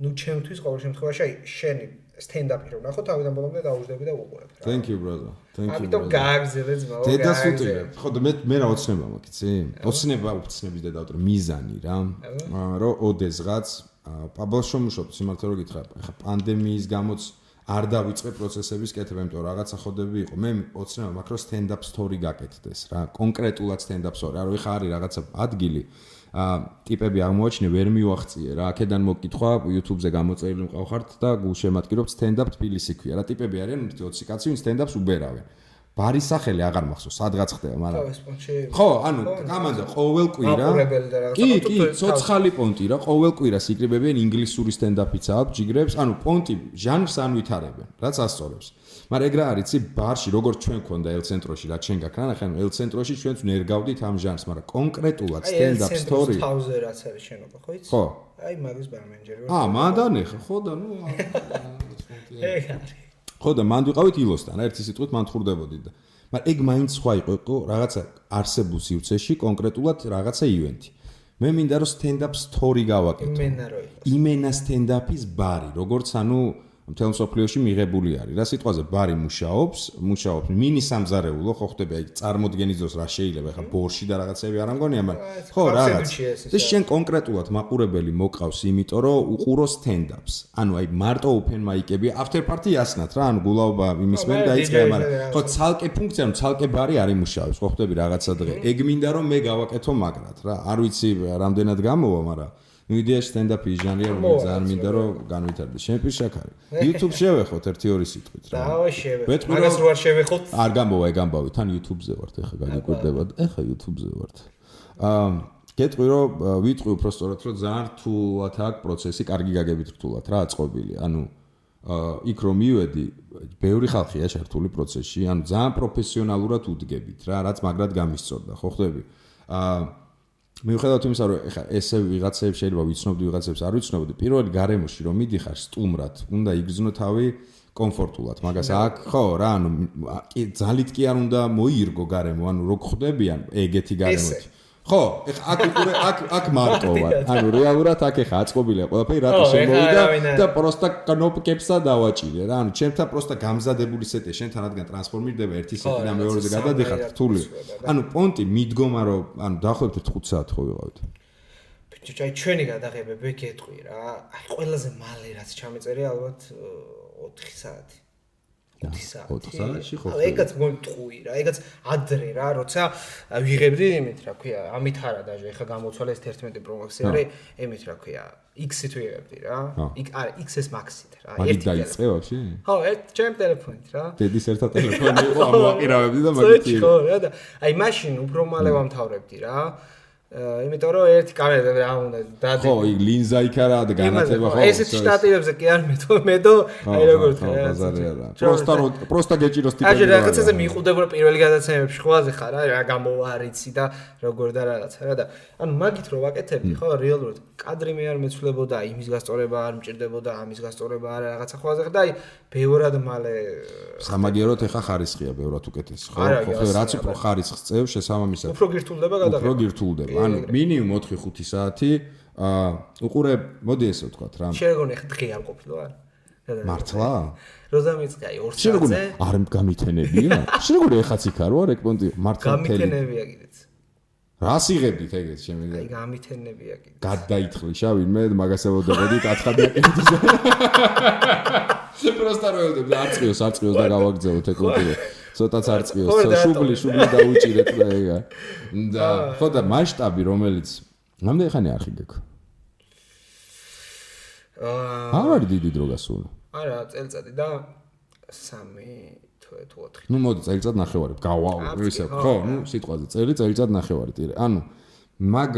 ნუ ჩემთვის ყოველ შემთხვევაში აი შენი სტენდაპი რო ნახო თავიდან ბოლომდე დაუждები და უყურებ რა. Thank you brother. Thank you. ამიტომ გააგზელე ძმაო. დედას უტირებ. ხო და მე რა ოცნება მაქვს, იცი? ოცნების და დავტრო მიზანი რა. რომ ოდესღაც პაბლშო მუშაობ, სიმართლე რო გითხრა, ხა პანდემიის გამოც არ დავიწყე პროცესების კეთება, იმიტომ რომ რაღაცა ხოდები იყო. მე ოცნება მაქვს რომ stand-up story გაკეთდეს რა, კონკრეტულად stand-up story. არა ვიხარ არის რაღაცა ადგილი, ტიპები აღმოაჩინე, ვერ მივახციე რა. აქედან მოკითხვა, YouTube-ზე გამოწერილი მყავხართ და გულშემატკივრობთ stand-up თბილისი ქვია რა. ტიპები არიან 20 კაცი, ვინ stand-up-ს უბერავენ. ბარის სახელი აღარ მახსოვს, სადღაც ხდება, მაგრამ ხო, ანუ გამანდა ყოველ კვირა. კი, ცოცხალი პონტი რა, ყოველ კვირას იკრიბებიან ინგლისური სტენდაპიც აქვს, ჯიგრებს, ანუ პონტი ჟანრს ანვითარებენ, რაც ასწორებს. მაგრამ ეგ რა არის, იცი, ბარში როგორც ჩვენ ქონდა ელ-ცენტროში, რაც შენ გაქრა, ნახე, ელ-ცენტროში ჩვენც ნერგავდით ამ ჟანრს, მაგრამ კონკრეტულად სტენდაპ სტორი. აი, თავზე რაც არის შენობა, ხო იცი? ხო. აი, მაგის ბარმენჯერი ვარ. მანდანე ხო და ნუ ეგ არის. ხო და მანდ ვიყავით ილოსთან, ერთი სიტყვით მან თხრდებოდი და მაგრამ ეგ მაინც სხვა იყო რაღაცა არსებულ სივრცეში კონკრეტულად რაღაცა ივენთი. მე მინდა რომ stand-up story გავაკეთო. იმენა stand-up-ის ბარი, როგორც ანუ მთელ მსოფლიოში მიღებული არის. რა სიტყვაზე ბარი მუშაობს მინი სამზარეულო, ხო ხდება აი წარმოდგენის დროს რა შეიძლება ხა ბორში და რაღაცები არ ამგონია, მაგრამ ხო რაღაც. ეს შენ კონკრეტულად მაყურებელი მოკავს, იმიტომ რომ უყურო stand-ups. ანუ აი მარტო open mic-ები, after party ასნათ რა, ანუ გულაობა იმის მერ დაიწყე, მაგრამ ხო ცალკე ფუნქცია, ანუ ცალკე ბარი არ იმუშავებს, ხო ხდები რაღაცა დღე. ეგ მინდა რომ მე გავაკეთო მაგრად რა. არ ვიცი რამდენად გამოვა, მაგრამ ნუ იდეაში stand-up-ის ჟანრია, რომელიც ძალიან მინდა რომ განვითარდეს. შენ პირშაქარი. YouTube შევეხოთ 1-2 სიტყვით რა. დავა შევეხოთ. მაგას რო არ შევეხოთ? არ გამოვა, ეგ თან YouTube-ზე ვართ, ეხა გაგიკვირდება. ეხა YouTube-ზე ვართ. გეტყვი რომ ვიტყვი უბრალოდ რომ ძალიან რთულად აქვს პროცესი, კარგი გაგებით რთულად რა აწყობილი. ანუ იქ რომ მივედი, ბევრი ხალხია შართული პროცესში, ანუ ძალიან პროფესიონალურად უდგებით რა, რაც მაგრად გამისწორდა, ხო ხდები? მიუხედავად იმისა, რომ ეხა ესე ვიღაცებს შეიძლება ვიცნობდი, ვიღაცებს არ ვიცნობდი, პირველი გარემოში რომ მიდიხარ სტუმრად, უნდა იგრძნო თავი კომფორტულად. მაგას აქ ხო რა, ანუ კი ძალით კი არ უნდა მოირგო გარემო, ანუ რო ხდებიან ეგეთი გარემოთი. ხო, აქ მარტოა. ანუ რეალურად აქ ეხა აწყობილია ყველაფერი, რატო შემოვიდა და პროსტა კნოპკებსა დავაჭირე რა. ანუ ჩემთან პროსტა გამზადებული სეტია, შენთან რადგან ტრანსფორმირდება ერთი სეტი და მეორეზე გადადიხარ რთული. ანუ პონტი მიდგომა რომ ანუ დაახლოებით 5 საათი ხო ვიყავით. ბიჭო, აი ჩვენი გადაღებები გეტყვი რა. აი ყველაზე მალე რაც ჩამეწერე ალბათ 4 საათი. 4 საათი ხო. ეგაც მომტყვი რა, ეგაც ადრე რა, როცა ვიღებდი იმით რა ქვია, ამით არა დაჟე, ეხა გამოცვალე ეს 11 Pro Max-ი არის, იმით რა ქვია, X-ით ვიღებდი რა. არა, XS Max-ით რა. ერთი დაიწყე ვაფშე? ხო, ჩემ ტელეფონით რა. დედის ერთა ტელეფონი იყო, ამოაყირავებდი და მაგითი. ხო, რა და აი მაშინ უფრო მალე ვამთავრებდი რა. იმიტომ რომ ერთი კამერა რა უნდა დადე. ხო, იქ ლინზა იქ არა და განათება ხო. ესეთ შტატივებზე კი არ მედო, აი როგორ ხარ. პროსტა გეჭიროს ტიპები. აი რაღაცაზე მიყვდება პირველი გადაცემებში ხვაზე ხარ რა გამოვარიცი და როგორ და რაღაცა რა და ანუ მაგით რო ვაკეთებდი ხო რეალურად კადრი მე არ მეცვლებოდა იმის გასწორება არ მჭირდებოდა ამის გასწორება არა რაღაცა ხვაზე ხარ და აი ბევრად მალე სამაგიეროდ ეხა ხარისხია ბევრად უკეთესი ხო ხო რაც უფრო ხარისხს წევს შესაბამისად უფრო გირთულდება გადაღება უფრო გირთულდება ანუ მინიმუმ 4-5 საათი უყურე მოდი ესე ვთქვათ რა შეგონე ხა დღე არ ყოფილა არა მართლა როზამიცკი აი 2 საათზე არ გამითენებია შეგონე ეხაც იქ არ ვარ ეგ პონტი მართლა გამითენებია კიდეც რას იღებდით ეგეთ შემიძლია აი გამითენებია კიდე გადაითხრი შავინმე მაგასებოდებოდი კაცხადია კიდე პროსტა როელდებ არწიოს და გავაგზავნოთ ეგ პონტი ცოტაც არწიოს შუბლი დაუჭირეთ და ეგა და ხო და მასშტაბი რომელიც რამდენი ხანი არ ხიგეკ არ დიდი დრო გასული არა წელიწადი და 3 თუ 4 ნუ მოდი წელიწად ნახევარი ისე ხო ნუ სიტყვაზე წელიწად ნახევარი ტირე ანუ მაგ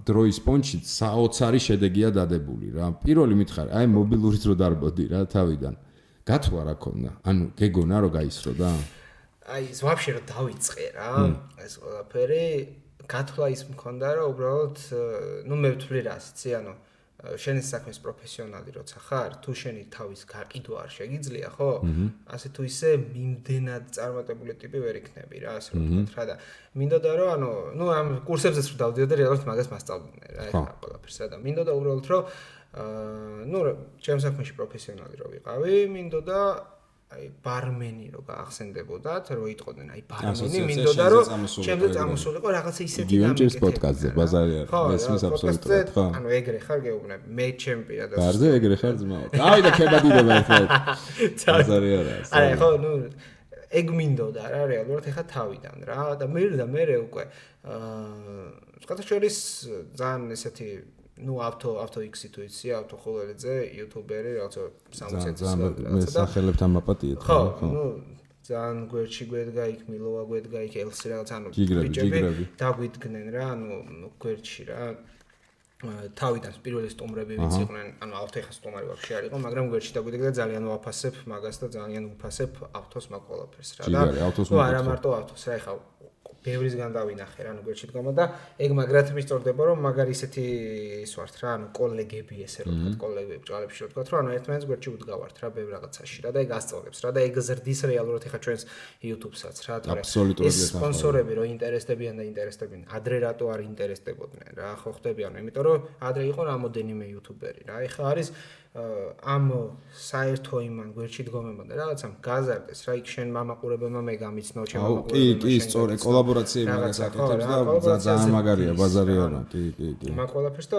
დროის პონჩი საოცარი შედეგია დადებული რა პირველი მითხარი აი მობილური დრო დარბოდი რა თავიდან გათვლა რა ქონდა ანუ გეგონა რომ გაისრო და აი ეს ვაფშე რომ დავიწყე რა ეს ყველაფერი გათვლა ის მქონდა რომ უბრალოდ ნუ მე ვთვლი რა იცი ანუ შენი საქმის პროფესიონალი როცა ხარ, თუ შენი თავის გაყიდვა არ შეგიძლია, ხო? ასე თუ ისე მიმდენად წარმატებული ტიპი ვერ იქნები რა, ასე რომ ვთქვათ რა და მინდოდა რომ ანუ, ნუ ამ კურსებზეც რომ დავდიოდი რეალურად მაგას მასწავლდნენ რა, ეხლა ყველაფერს რა და მინდოდა უბრალოდ რომ ნუ ჩემ საქმეში პროფესიონალი რო ვიყავი, მინდოდა აი ბარმენი რო გაახსენდებოდათ, რო იტყოდნენ აი ბარმენი, მინდოდა რომ ჩემზე წამოსულიყო რაღაცა ისეთი გამიკეთე. პოდკასტზე ბაზარი არ მესმის აბსოლუტურად, ხო? ანუ ეგრე ხარ გეუბნები, მე ჩემპია და ბარზე ეგრე ხარ ძმაო. დავიდა ქებადიდება ერთად. ბაზარი არა. აი ხო, ნუ ეგ მინდოდა რა რეალურად ეხა თავიდან რა და მე უკვე სხვადასხვა ძალიან ესეთი ნუ ავტო X-ი თუ იცი, ავტო ხოლერეძე, იუთუბერი, რაღაცა 60 წელს მე სახელებთან მაპატიეთ. ხო, ნუ ძალიან გვერდში გვედგა იქ, მილოვა გვედგა იქ, ელსი რაღაც ანუ ბიჭები დაგვიდგნენ რა, ანუ გვერდში რა. თავიდან პირველი სტუმრები ვინც იყვნენ, ანუ ავტო ეხა სტუმარი ვაფშე არ იყო, მაგრამ გვერდში დაგვიდგა და ძალიან ვაფასებ მაგას და ძალიან ვფასებ ავტოს მაგ ყველაფერს რა და ნუ არა მარტო ავტოს რა ეხა ბევრისგან დავინახე რა, ანუ გვერდში დგომა და ეგ მაგრად მისწორდება რომ მაგარი ისეთი ის ვართ რა, ანუ კოლეგები ესე რომ ვთქვათ, კოლეგები ბჭყალებში რომ ვთქვათ, რომ ანუ ერთმანეთს გვერდში უდგავართ რა, ბევრ რაღაცაში რა და ეგ ასწავლებს რა და ეგ ზრდის რეალურად ეხა ჩვენს YouTube-საც რა, თორე ეს სპონსორები რომ ინტერესდებიან და ინტერესდებიან, ადრე რატო არ ინტერესდებოდნენ რა, ხო ხდები ანუ, იმიტომ რომ ადრე იყო რამოდენიმე YouTuberi რა, ეხა არის ამ საერთო იმან გვერდში დგომებმა და რაღაცამ გაზარდეს რა იქ შენ მამაყურებელმა მე გამიცნო ჩემ მამაყურებელმა კი სწორე კოლაბორაციები მაგას აკეთებს და ძალიან მაგარია ბაზარი არა კი მაგ ყველაფერს და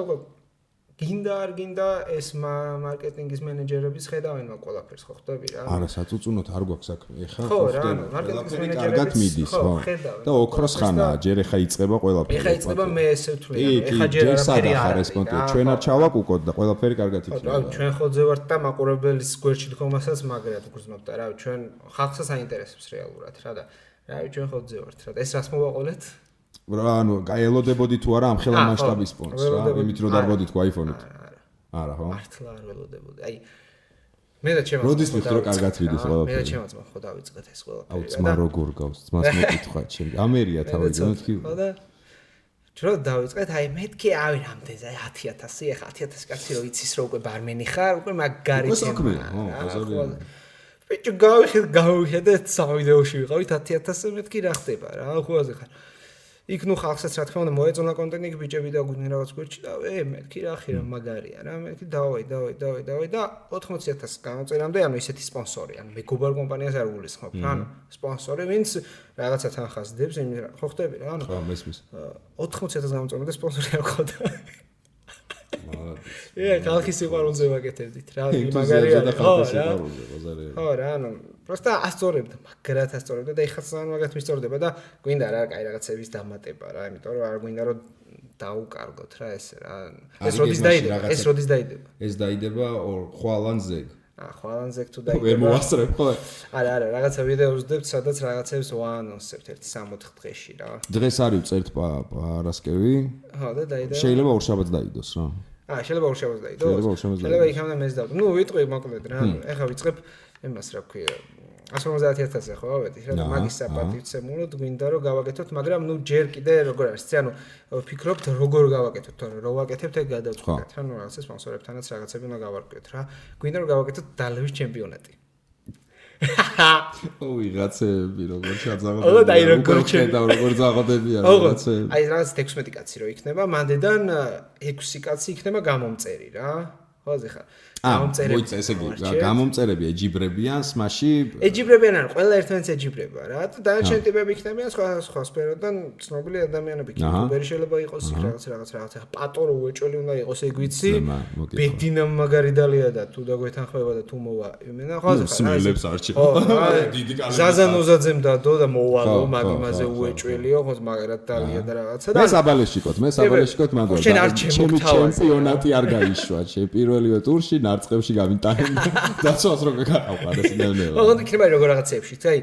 გინდა არ გინდა ეს მარკეტინგის მენეჯერების ხედავენ მაგ ყველაფერს ხო ხდები რა არა საწუწუნოთ არ გვაქვს საქმე ეხა ხო რა მარკეტინგის მენეჯერები კარგად მიდის ხო და ოქროს ხანაა ჯერ ეხა იწყება ყველაფერი ეხა იწყება მე ესე ვთვლი ეხა ჯერ არაფერი არ არის ჩვენ არ ჩავაკუკოთ და ყველაფერი კარგად იქნება რა ჩვენ ხოლმე ვართ და მაყურებელის გვერდში დგომასაც მაგრად გრძნობთ და რა ჩვენ ხალხსაც აინტერესებს რეალურად რა და რა ჩვენ ხოლმე ვართ რა და ეს რას მოვაყოლეთ რა ანუ გაელოდებოდი თუ არა ამ ხელა მასშტაბის სპონს რა იმით რომ დარბოდით ხო აიფონით არა ხო მართლა არ ველოდებოდი აი მე და ჩემს როდის მიხდრო კარგად ვიდეს ყველაფერი მე და ჩემს ხო დავიწყეთ ეს ყველაფერი აუ ძმა როგორ გავს ძმას მეკითხვა ჩემი ამერია თავიდან თქვი ხო და ჯრო დავიწყეთ აი მეთქი ავი რამდენზე აი 10000 ეხა 10000 კაცი რო იცის რო უკვე ბარმენი ხარ უკვე მაგარი თემაა ხო ბაზარია ბიჭო გავიხედეთ სამ ვიდეოში ვიყავით 10000 მეთქი რა ხდება რა ხუაზე ხარ იქ ნუ ხალხსაც რა თქმა უნდა მოეწონა კონტენტი, იქ ბიჭები და გვინდა რაღაც გვერდში და მეთქი რა ხი რა მაგარია რა, მეთქი დავაი და 80,000 გამოწერამდე ანუ ისეთი სპონსორი, ანუ მეგობარ კომპანიას არ გულისხმობ, ანუ სპონსორი ვინც რაღაცა თანხას დებს, ხო ხდები რა, ანუ ხო მესმის 80,000 გამოწერამდე სპონსორი არ ყავდა. ხალხის სიყვარულზე ვაკეთებდით რა, მაგარია და ხალხის სიყვარულზე ბაზარია. ხო რა, ანუ просто ასწორებდა, მაგრად ასწორებდა და ეხლა სულ მაგათ მისწორდება და გვინდა რა, კაი რაღაცების დამატება რა, იმიტომ რომ არ გვინდა რომ დაუკარგოთ რა ესე რა. ეს როდის დაიდება? ეს დაიდება ხვალანზე. ხვალანზე თუ დაიდება. ვერ მოასწრებ ხო? არა, რაღაცა ვიდეოს ვდებთ, სადაც რაღაცებს ვაანონსებთ 1-3 დღეში რა. დღეს არის ვწერთ პარასკევი. ხო და დაიდება. შეიძლება ორშაბათს დაიდოს რა. შეიძლება ორშაბათს დაიდოს. შეიძლება იქამდე მეც დავდო. ნუ ვიტყვი მოკლედ რა. ეხლა ვიწყებ იმას რა ქვია 150,000-ზე ხო ავედი რა მაგის საპატივცემულოდ გვინდა რომ გავაკეთოთ, მაგრამ ნუ ჯერ კიდე როგორ არის, ანუ ვფიქრობთ როგორ გავაკეთოთ, თორე რო ვაკეთებთ ეგ გადავწყვეტთ რა, ნუ რაღაცა სპონსორებთანაც რაღაცები უნდა გავარკვიოთ რა. გვინდა რომ გავაკეთოთ დალევის ჩემპიონატი. ვიღაცები როგორ ჩაძაღობენ. ო და როგორ ზაღოდებიან რაღაცები. აი რაღაც 16 კაცი რო იქნება, მანდედან 6 კაცი იქნება გამომწერი რა. ხო ზეხა. გამომწერები. ესე იგი, გამომწერები ეჯიბრებიან, სმაში. ეჯიბრებიან ან ყველა ერთმანეთს ეჯიბრება რა. და დანარჩენი ტიპები იქნებიან სხვა სფეროდან ცნობილი ადამიანები. იუტუბერი შეიძლება იყოს, რაღაც. პატორო უეჭველი უნდა იყოს, ეგ ვიცი. ბედინა მაგარი დალია და თუ დაგვეთანხმება და თუ მოვა. იმენა ხო ზეხა. სმელებს არჩევ. დიდი კალები. ზაზანოზაძემ დადო და მოვალო, მაგიმაზე უეჭველიო, ხო მაგარად დალია და რაღაცა და მე საბალეშიკოთ მანდ. ჩემპიონატი არ გაიშვა, პირველივე ტურში არწყევში გამიტანენ დაცვას რო გაკავყარეს ნევნევა. ოღონდ იქნება როგორ რაღაცებში, აი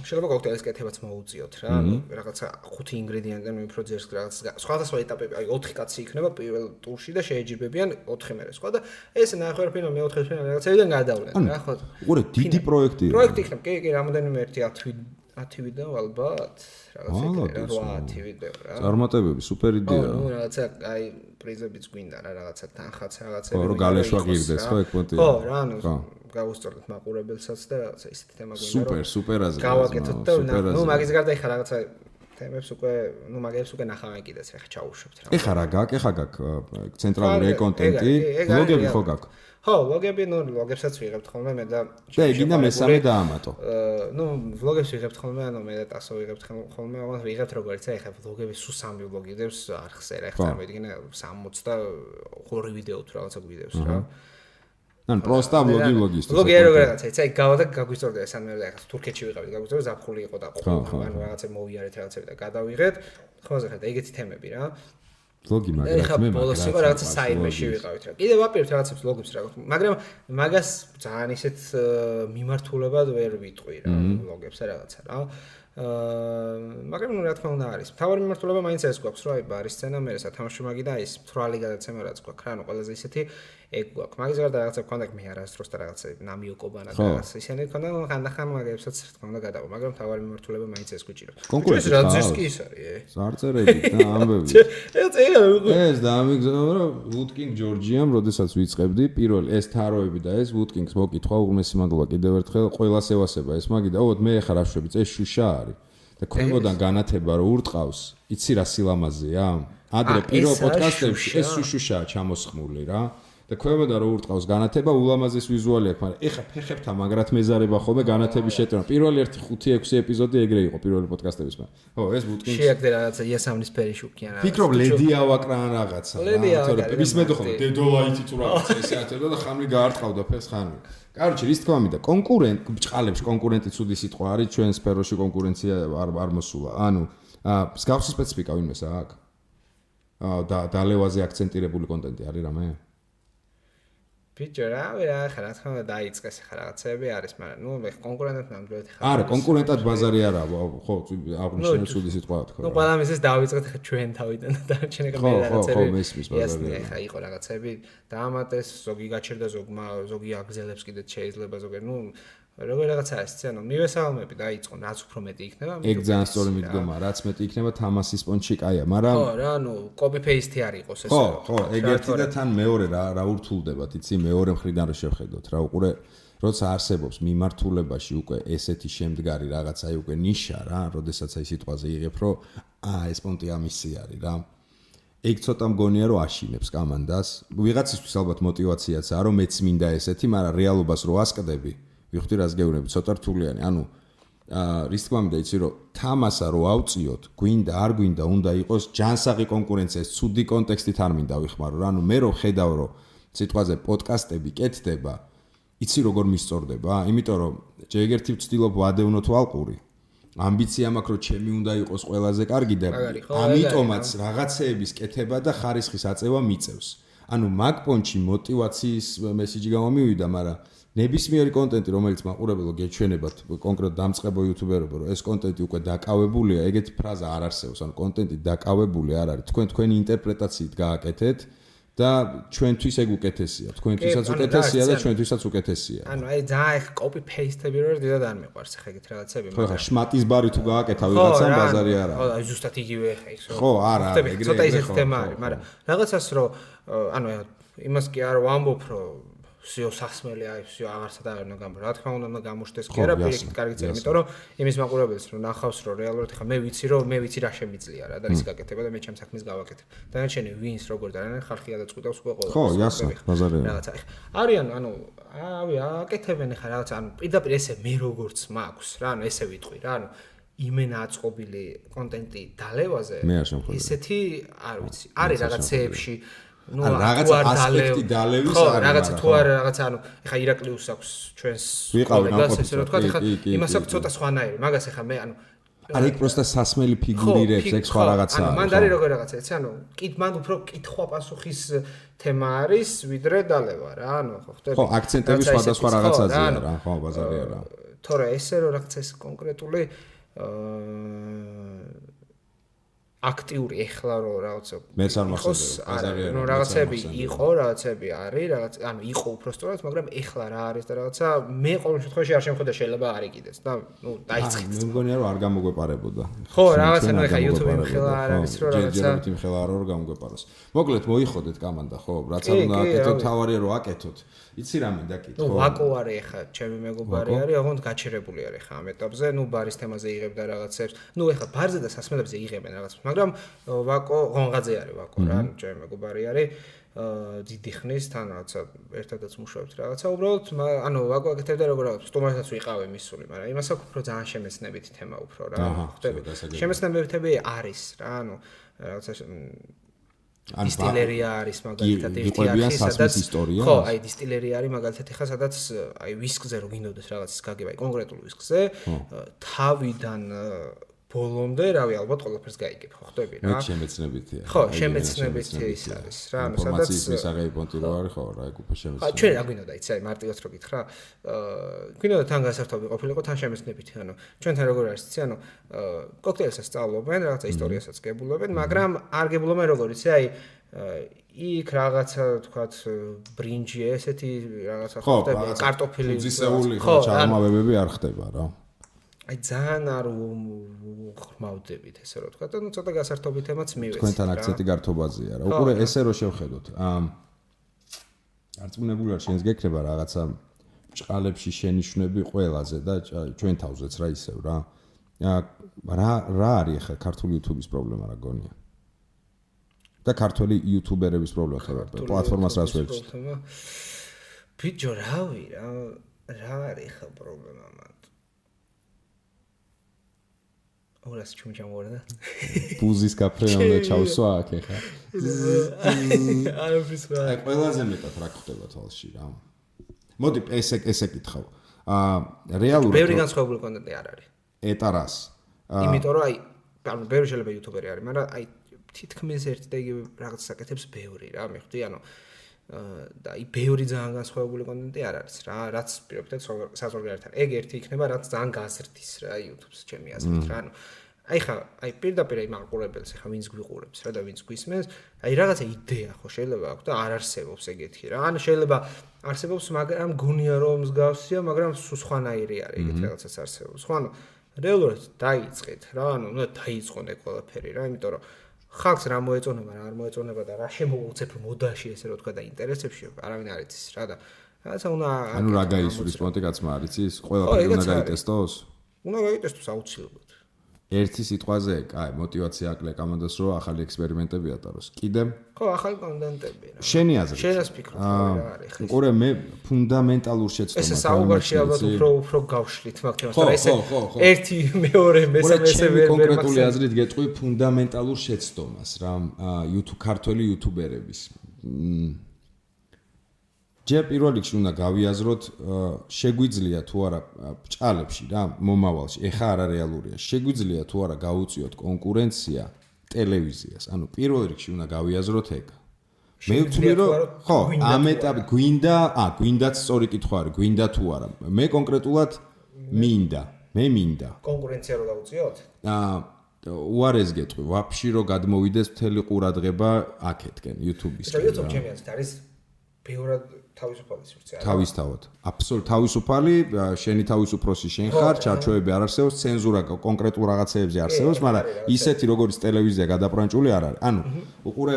შეიძლება კოქტეილის კეთებაც მოუწიოთ რა, რაღაცა 5 ინგრედიენტიდან უფრო ძერს რაღაც სხვადასხვა ეტაპები, აი 4 კაცი იქნება პირველ ტურში და შეეჯიბებიან 4 მერე სხვა და ეს ნახევარფინალ მეოთხე ფინალ რაღაცებიდან გადავლენ რა, ხო? უყურე დიდი პროექტია. პროექტი იქნება, კი, რამოდენიმე 10 ვიდეო ალბათ, რაღაცა 8 ვიდეო რა. წარმატებები, სუპერ იდეა. ნუ რაღაცა აი პრიზებიც გვინდა რა, რაღაცა თანხაც რაღაცები. ხო, რომ გალეშვა გირდეს, ხო, ეგ პონტია. ხო, რა, ანუ გავუსწორდეთ მაყურებელსაც და რაღაცა ისეთი თემა გვინდა რომ სუპერ აზრი. გავაკეთოთ და ნუ მაგის გარდა ეხა რაღაცა თემებს უკვე, ნუ მაგებს უკვე ნახავენ კიდეც ეხა ჩაუშვებთ რა. ეხა რა გაქვს, ეხა გაქვს ცენტრალური კონტენტი, ბლოგები ხო გაქვს? ხო, ლოგები, ნუ ლოგებსაც ვიღებთ ხოლმე მე და გინდა მესამე დაამატო. ნუ ვლოგებს ვიღებთ ხოლმე, ანუ მე და ტასო ვიღებთ ხოლმე, მაგრამ ვიღებთ როგორც აი ხა ლოგები სულ 3 ვლოგი დევს არხზე რა, ხა წარმოიდგინე 62 ვიდეო თუ რაღაცა გვიდევს რა. ან პროსტა ვლოგისტი. ლოგი რაღაცა, აი გავა და გაგვისწორდა ეს ან მე და ხა თურქეთში ვიყავით, გაგვისწორდა ზაფხული იყო და ანუ რაღაცა მოვიარეთ რაღაცები და გადავიღეთ. ხო ზეხა და ეგეთი თემები რა. ლოგი მაგრამ მე ბოლოს იყო რაღაცა საიმეში ვიყავით რა. კიდევ ვაპირებთ რაღაცებს ლოგებს რა. მაგრამ მაგას ძალიან ისეთ მიმართულებად ვერ ვიტყვი რა ლოგებს რაღაცა რა. მაგრამ ნუ რა თქმა უნდა არის. თავარი მიმართულება მაინც ეს გვაქვს რა, აი ბარის სცენა, მე სათამაშო მაგი და ის თვრალი გადაცემა რაც გვაქვს რა, ანუ ყველაზე ისეთი ეგ გვაქვს. მაგის გარდა რაღაცა გქონდა მე არასდროს და რაღაცა ნამიოკობანა და რაღაცა ისინი გქონდა, ხანდახან მაგებსაც რა თქმა უნდა გადავა, მაგრამ თავარი მიმართულება მაინც ეს გვიჭირებს. კონკურენცია რა ძის კი ის არის, ზარწერები და ამბები. ეს და ამიგზავნა რომ ვუდკინგ ჯორჯიამ, როდესაც ვიწყებდი, პირველ ეს თაროები და ეს ვუდკინგს მოკითხვა უღმესი მადლობა კიდევ ერთხელ ყველას ევასება ეს მაგი და ოთ მე ხარ აშვები, ეს შუშა არის. და ქვემოდან განათება რო ურტყავს, იცი რა სილამაზეა? ადრე პირველ პოდკასტებში ეს შუშაა ჩამოსხმული რა. და ქვემოდან რო ურტყავს განათება, ულამაზეს ვიზუალი აქვს, მაგრამ ეხა ფეხებთან მაგრად მეზარება ხოლმე განათების შეტანა. პირველი 1-5-6 ეპიზოდი ეგრე იყო პირველი პოდკასტების მაგრამ. ხო, ეს ვუდკინგს შეაგდე რაღაცა იასამნის ფერი შუქიან რა. ფიქრობ ლედი ავაკრან რაღაცა. თორე მისმედო ხოლმე დედოლაიტი თუ რაღაცა ესე ათებდა და ხამლი გაარტყავდა ფეხს ხანმი. კაროჩი, რის თქმა უნდა, ბჭყალებს კონკურენტი ცუდი სიტყვა არის, ჩვენ სფეროში კონკურენცია არ მოსულა. ანუ მსგავსი სპეციფიკა ვინმეს აქვს? და დალევაზე აქცენტირებული კონტენტი არის რამე? ბიჭო რა ხა რა თქმა უნდა დაიწყეს ხა რაღაცები არის, მაგრამ ნუ მე კონკურენტად ნამდვილად ხარ. არა, კონკურენტად ბაზარი არა, ხო, აღნიშნე ცუდი სიტყვა თქვა. ნუ ყველა მისეს დავიწყეთ ხა ჩვენ თავიდან და ჩვენ ეგ მე რაღაცები. ხო, მესმის ბაზარი. ხა იყო რაღაცები დაამატეს, ზოგი გაჩერდა ზოგი აგზელებს კიდეც შეიძლება ზოგი, ნუ როგორ რაღაცა არის, ანუ მივესალმები დაიწყო, რაც უფრო მეტი იქნება. ეგ ძალიან სწორი მიდგომა, რაც მეტი იქნება, თამასის პონჩი კაია, მაგრამ ხო, რა, ნუ copy paste არ იყოს ეს. ხო, ეგ ერთი და თან მეორე რა ურთულდება, იცი, მეორე მხრიდან რა შევხედოთ, რა უყურე როცა არსებობს მიმართულებაში უკვე ესეთი შემდგარი რაღაც აი უკვე ნიშა რა, როდესაც აი სიტყვაზე იღებ, რომ ეს პონტი ამისი არის რა. ეგ ცოტა მგონია რომ აშინებს კამანდას. ვიღაცისთვის ალბათ мотиваციაცაა რომ მეც მინდა ესეთი, მაგრამ რეალობას რო ასკდები, ვიხდი რას გეუბნები, ცოტა რთულიანი. ანუ რის თქმა უნდა იცი რომ თამასა რო ავწიოთ, გვინდა არ გვინდა, უნდა იყოს ჯანსაღი კონკურენცია, ცუდი კონტექსტით არ მინდა ვიხმარო რა. ანუ მე რო ხედავ რომ სიტყვაზე პოდკასტები კეთდება, იცი როგორ მისწორდება? იმიტომ რომ ჯერ ერთი ვცდილობ ვადევნო თუ ალყური. ამბიცია მაქვს რომ ჩემი უნდა იყოს ყველაზე კარგი და ამიტომაც რაღაცეების კეთება და ხარისხის აწევა მიწევს. ანუ მაგ პონჩი мотиваციის მესიჯი გამომივიდა, მაგრამ ნებისმიერი კონტენტი რომელიც მაყურებელო გეჩვენებათ კონკრეტ დამწყებო იუთუბერებო რომ ეს კონტენტი უკვე დაკავებულია, ეგეთი ფრაზა არ არსებობს. ანუ კონტენტი დაკავებული არ არის. თქვენი ინტერპრეტაციით გააკეთეთ და ჩვენთვის ეგ უკეთესია. თქვენთვისაც უკეთესია და ჩვენთვისაც უკეთესია. ანუ აი ძალიან ეხ copy paste-ები რო დიდად არ მიყვარს ხა ეგეთ რაღაცები. ხო ხა შმატის ბარი თუ გააკეთა ვიღაცამ ბაზარი არა. ხო აი ზუსტად იგივე ხა ის რო. ხო არა, ეგრე ცოტა ისეთი თემა არის, მაგრამ რაღაცას რო ანუ იმას კი არ ვამბობ რომ всё სასმელი აი всё აღარსად არ უნდა გამბო. რა თქმა უნდა გამოშდეს კი არა პირიქით კარგი წერა, იმიტომ რომ იმის მაყურებელს რომ ნახავს რომ რეალურად ხა მე ვიცი რა შემიძლია რა და რის გაკეთება და მე ჩემ საქმეს გავაკეთებ. დანარჩენი ვინს როგორ და რა ხალხი ადაწყვიტავს უკვე ყველა. ხო, იასნა, ბაზარი არა. რაღაცა ხა. არიან ანუ აკეთებენ ხა რაღაცა ანუ პირდაპირ ესე მე როგორც მაქვს რა, ანუ ესე ვიტყვი რა, ანუ იმენა აწყობილი კონტენტი დალევაზე. ესეთი არ ვიცი. არის რაღაცეებში ну რაღაცა ასპექტი დალევის არის. ხო, რაღაცა თუ არა რაღაცა ანუ ეხა ირაკლიუს აქვს ჩვენს კოლეგას ესე რომ თქვა, ეხა იმას აქვს ცოტა სხვანაირი. მაგას ეხა მე ანუ არ იქ პროსტა სასმელი ფიგურირებს, ეგ სხვა რაღაცაა. ანუ მან არის როგორ რაღაცა, იცი, ანუ მან უფრო კითხვა-პასუხის თემა არის, ვიდრე დალევა რა, ანუ ხო ხდება. ხო, აქცენტები სხვადასხვა რაღაცაზეა რა, ხო, ბაზარია რა. თორე ესე რომ რაღაცა ეს კონკრეტული აქტიური ეხლა რო რაღაცა მეც არ მახსოვს ბაზარია რა რაღაცები იყო რაღაცები არის რაღაც ანუ იყო უბრალოდ მაგრამ ეხლა რა არის და რაღაცა მე ყოველ შემთხვევაში არ შემხედა შეიძლება არ იყიდეს და ნუ დაიწყეთ მე მგონია რომ არ გამოგვეპარებოდა ხო რაღაცა ნუ ეხლა YouTube-ი მხელა არ არის რომ რაღაცა ჯერ მხელა არ რომ გამოგვეპაროს მოკლედ მოიხოდეთ კამანდა ხო რაც არ უნდა აკეთოთ თავარია რომ აკეთოთ იცი რა მინდა კითხო ნუ ვაკო არის ეხლა ჩემი მეგობარი არის ოღონდ გაჩერებული არის ეხლა ამ ეტაპზე ნუ ბარის თემაზე იღებდა რაღაცებს ნუ ეხლა ბარზე და სასმელებზე იღებენ რაღაცებს მაგრამ ვაკო ღონღაძე არის ვაკო რა ჩემი მეგობარი არის დიდი ხნის თან რაღაცა ერთადაც მუშაობთ რაღაცა უბრალოდ ანუ ვაკო აკეთებდა როგორ რაღაც სტუმარსაც ვიყავე მისული მაგრამ იმას აქვს უფრო ძალიან შემეცნებითი თემა უფრო რა ხდები შემეცნებითები არის რა ანუ რაღაცა დისტილერია არის მაგალითად ერთი არის სადაც ხო აი დისტილერია არის მაგალითად ხა სადაც აი ვისკზე რო გინდოდეს რაღაცის გაგება აი კონკრეტულ ვისკზე თავიდან ბოლომდე რავი ალბათ ყველაფერს გაიგებ ხო ხდები რა მე შემეცნებითია ხო შემეცნებითი ის არის რა ანუ სადაც ინფორმაციის მისაღები პონტი რო არის ხო რა ეგ უფრო შემეცნებითია ჩვენ რა გვინდა იცი აი მარტივად რო გითხრა გვინდა თან გასართობი ყოფილიყო თან შემეცნებითი ანუ ჩვენთან როგორ არის იცი ანუ კოქტეილსაც სწავლობენ რაღაცა ისტორიასაც გებულობენ მაგრამ არ გებულობენ როგორ იცი აი იქ რაღაცა თქვათ ბრინჯი ესეთი რაღაცა ხდება კარტოფილი ხო ჩაღრმავებები არ ხდება რა აი ძალიან არ ხმავდებით ესე რომ თქვა და ნუ ცოტა გასართობი თემაც მივეცი თქვენთან აქცენტი გართობაზეა რა უყურე ესე რომ შევხედოთ არწმუნებული ვარ შენს გეკრება რაღაცა ჭყალებში შენიშვნები ყველაზე და ჩვენ თავზეც რა ისევ რა რა არის ახლა ქართული YouTube-ის პრობლემა რა გონია და ქართული YouTuber-ების პრობლემა ხარ პლატფორმას რას ვერჩით ბიჭო რავი რა არის ხა პრობლემა მან ორას ჩუმჩამორდა ბუზის კაფე უნდა ჩავსვა აქ ეხა არ ვიცი აი ყველაზე მეტად რა ხდება თვალში რა მოდი ესე კითხავ რეალურად ბევრი განსხვავებული კონტენტი არ არის ეტარას იმიტომ რომ აი ანუ ბევრი შეიძლება იუთუბერი არის მაგრამ აი თითქმის ერთ და იგივე რაღაცას აკეთებს ბევრი რა მიხვდი ანუ და აი ბევრი ძალიან განსხვავებული კონტენტი არ არის რა რაც პირობითად საზღვარგარეთთან ეგ ერთი იქნება რაც ძალიან გაზრდის რა YouTube-ს ჩემი აზრით რა ანუ აი ხა აი პირდაპირ აი მაყურებელს ხა ვინც გვიყურებს რა და ვინც გვისმენს აი რაღაცა იდეა ხო შეიძლება აქვს და არ არსებობს ეგეთი რა ანუ შეიძლება არსებობს მაგრამ გონია რომ მსგავსია მაგრამ სხვანაირი არის ეგეთი რაღაცაც არსებობს ხო ანუ რეალურად დაიწყეთ რა ანუ უნდა დაიწყონ ეგ ყველაფერი რა იმიტომ რომ ხალხს რა მოეწონება რა არ მოეწონება და რა შემოუცებ მოდაში ესე რომ თქვა და ინტერესებში არავინ არ იცის რა და რაღაცა უნდა ანუ რა გაისურის პონტი კაცმა არის ის ყველაფერი უნდა გაიტესტოს უნდა გაიტესტოს აუცილებლად ერთი სიტყვაზე კაი мотивация აკლია კომანდას რომ ახალი ექსპერიმენტები ატაროს კიდე ხო ახალი კონტენტები რა შენი აზრით შენას ფიქრობ რა არის ხე ყურე მე ფუნდამენტალურ შეცდომას ეს საუბარში ალბათ უფრო გავშლით მაგ თემას რა ესე ერთი მეორე მესამე ვერ კონკრეტული აზრით გეტყვი ფუნდამენტალურ შეცდომას რა YouTube ქართველი იუთუბერების ჯერ პირველ რიგში უნდა გავიაზროთ შეგვიძლია თუ არა ბჭყალებში რა მომავალში ეხა არა რეალურია შეგვიძლია თუ არა გაუწიოთ კონკურენცია ტელევიზიას ანუ პირველ რიგში უნდა გავიაზროთ ეგ მე ვთვლი რომ ხო ამ ეტაპი გვინდაც სწორი კითხვა არის გვინდა თუ არა მე კონკრეტულად მინდა კონკურენცია რო გაუწიოთ უარეს გეტყვი ვაფშე რომ გადმოვიდეს მთელი ყურადღება აქეთკენ YouTube-ის YouTube ჩემი აზრით არის ბევრად თავისუფალი სივრცე არა თავისთავად აბსოლუტურად თავისუფალი შენი თავისუფროსი შენ ხარ ჩარჩოები არ არსებობს ცენზურა კონკრეტულ რაღაცეებზე არსებობს მაგრამ ისეთი როგორც ტელევიზია გადაპრანჭული არ არის ანუ უყურე